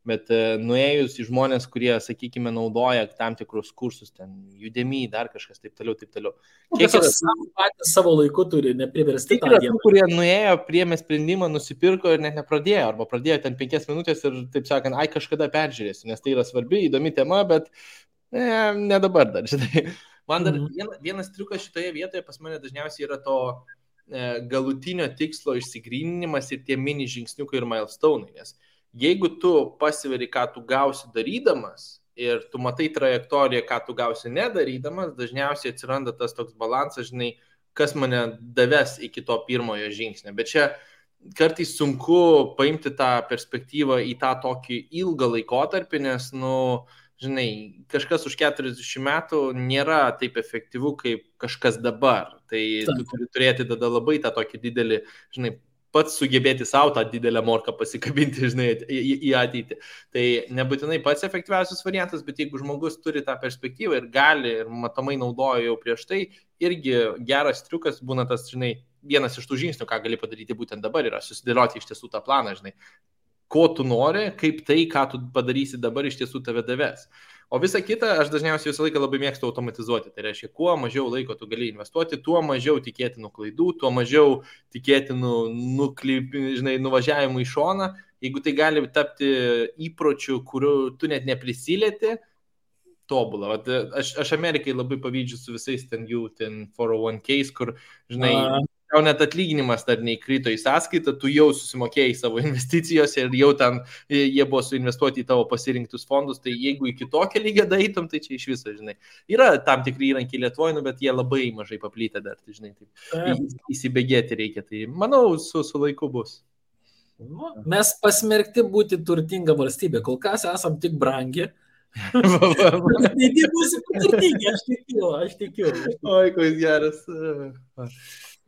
Bet nuėjus į žmonės, kurie, sakykime, naudoja tam tikrus kursus, ten Udemy, dar kažkas, taip toliau, taip toliau. Kiek patys savo laiku turi, nepriversti tą dieną. dieną. Kurie nuėjo, priėmė sprendimą, nusipirko ir net nepradėjo, arba pradėjo ten 5 minutės ir, taip sakant, kažkada peržiūrėsiu, nes tai yra svarbi, įdomi tema, bet ne dabar dar, žinai. Man dar vienas triukas šitoje vietoje pas mane dažniausiai yra to galutinio tikslo išsigryninimas ir tie mini žingsniukai ir milestone'ai, nes jeigu tu pasiveri, ką tu gausi darydamas ir tu matai trajektoriją, ką tu gausi nedarydamas, dažniausiai atsiranda tas toks balansas, žinai, kas mane daves iki to pirmojo žingsnio. Bet čia kartais sunku paimti tą perspektyvą į tą tokį ilgą laikotarpį, nes, žinai, kažkas už 40 metų nėra taip efektyvu kaip kažkas dabar. Tai tu turi turėti tada labai tą tokį didelį, žinai, pats sugebėti savo tą didelę morką pasikabinti, žinai, į ateitį. Tai nebūtinai pats efektyviausias variantas, bet jeigu žmogus turi tą perspektyvą ir gali, ir matomai naudojo jau prieš tai, irgi geras triukas būna tas, žinai, vienas iš tų žingsnių, ką gali padaryti būtent dabar, yra susidėlioti iš tiesų tą planą, žinai, ko tu nori, kaip tai, ką tu padarysi dabar, iš tiesų tave daves. O visa kita, aš dažniausiai visą laiką labai mėgstu automatizuoti. Tai reiškia, kuo mažiau laiko tu gali investuoti, tuo mažiau tikėtinų klaidų, tuo mažiau tikėtinų nuvažiavimų į šoną. Jeigu tai gali tapti įpročiu, kuriuo tu net neprisilieti, tobulą. Aš Amerikai labai pavydžiu su visais ten 401ks, kur, žinai, tau net atlyginimas dar neįkrito į sąskaitą, tu jau susimokėjai savo investicijose ir jau ten jie buvo suinvestuoti į tavo pasirinktus fondus, tai jeigu iki tokio lygio daeitum, tai čia iš viso, žinai. Yra tam tikri įrankiai Lietuvoje, bet jie labai mažai paplytę dar, tai, žinai, taip įsibėgėti reikia. Tai manau, su laiku bus. Mes pasmerkti būti turtinga valstybė, kol kas esam tik brangi. Tai būsi turtingi, aš tikiu. Oi, koks geras.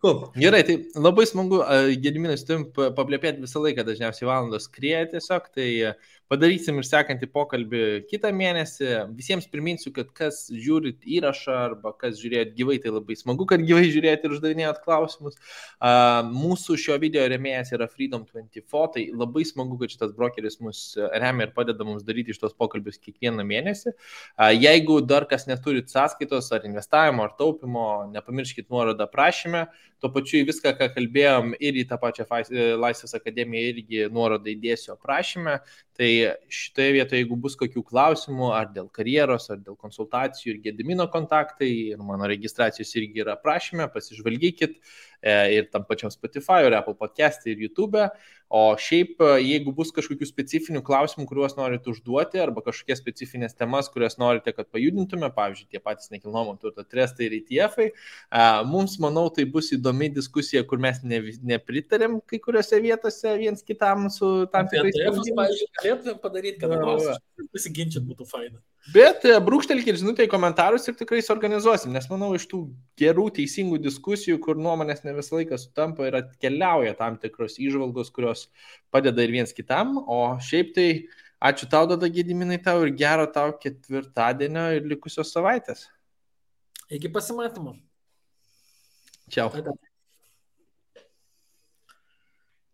Cool. Gerai, tai labai smagu, Gediminai, su tavim paplėpėti visą laiką, dažniausiai valandos skrieja tiesiog, tai padarysim ir sekantį pokalbį kitą mėnesį. Visiems priminsiu, kad kas žiūrit įrašą arba kas žiūrėjot gyvai, tai labai smagu, kad gyvai žiūrėjot ir uždavinėjot klausimus. Mūsų šio video rėmėjas yra Freedom24, tai labai smagu, kad šitas brokeris mus remia ir padeda mums daryti šitos pokalbius kiekvieną mėnesį. Jeigu dar kas neturit sąskaitos ar investavimo ar taupimo, nepamirškit nuorodą prašyme. Tuo pačiu į viską, ką kalbėjom, ir į tą pačią Laisvės akademiją irgi nuorodą įdėsiu aprašyme. Tai šitoje vietoje, jeigu bus kokių klausimų, ar dėl karjeros, ar dėl konsultacijų, ir Gedimino kontaktai, ir mano registracijos irgi yra aprašyme, pasižvalgykit ir tam pačiam Spotify, ir Apple Podcast, ir YouTube. O šiaip, jeigu bus kažkokių specifinių klausimų, kuriuos norite užduoti, arba kažkokias specifinės temas, kurias norite, kad pajudintume, pavyzdžiui, tie patys nekilnojamo turto trestai ir ETF-ai, mums, manau, tai bus įdomi diskusija, kur mes nepritarėm kai kuriuose vietose viens kitam su tam tikrais sprendimais. Pavyzdžiui, galėtume padaryti, kad nors pasiginčyti būtų faina. Bet brūkštelkit žinutę į komentarus ir tikrai suorganizuosim, nes manau, iš tų gerų, teisingų diskusijų, kur nuomonės ne visą laiką sutampa ir atkeliauja tam tikros įžvalgos, kurios padeda ir viens kitam. O šiaip tai ačiū tau, Dada Gediminai, tau ir gero tau ketvirtadienio ir likusios savaitės. Iki pasimatymo. Čiau.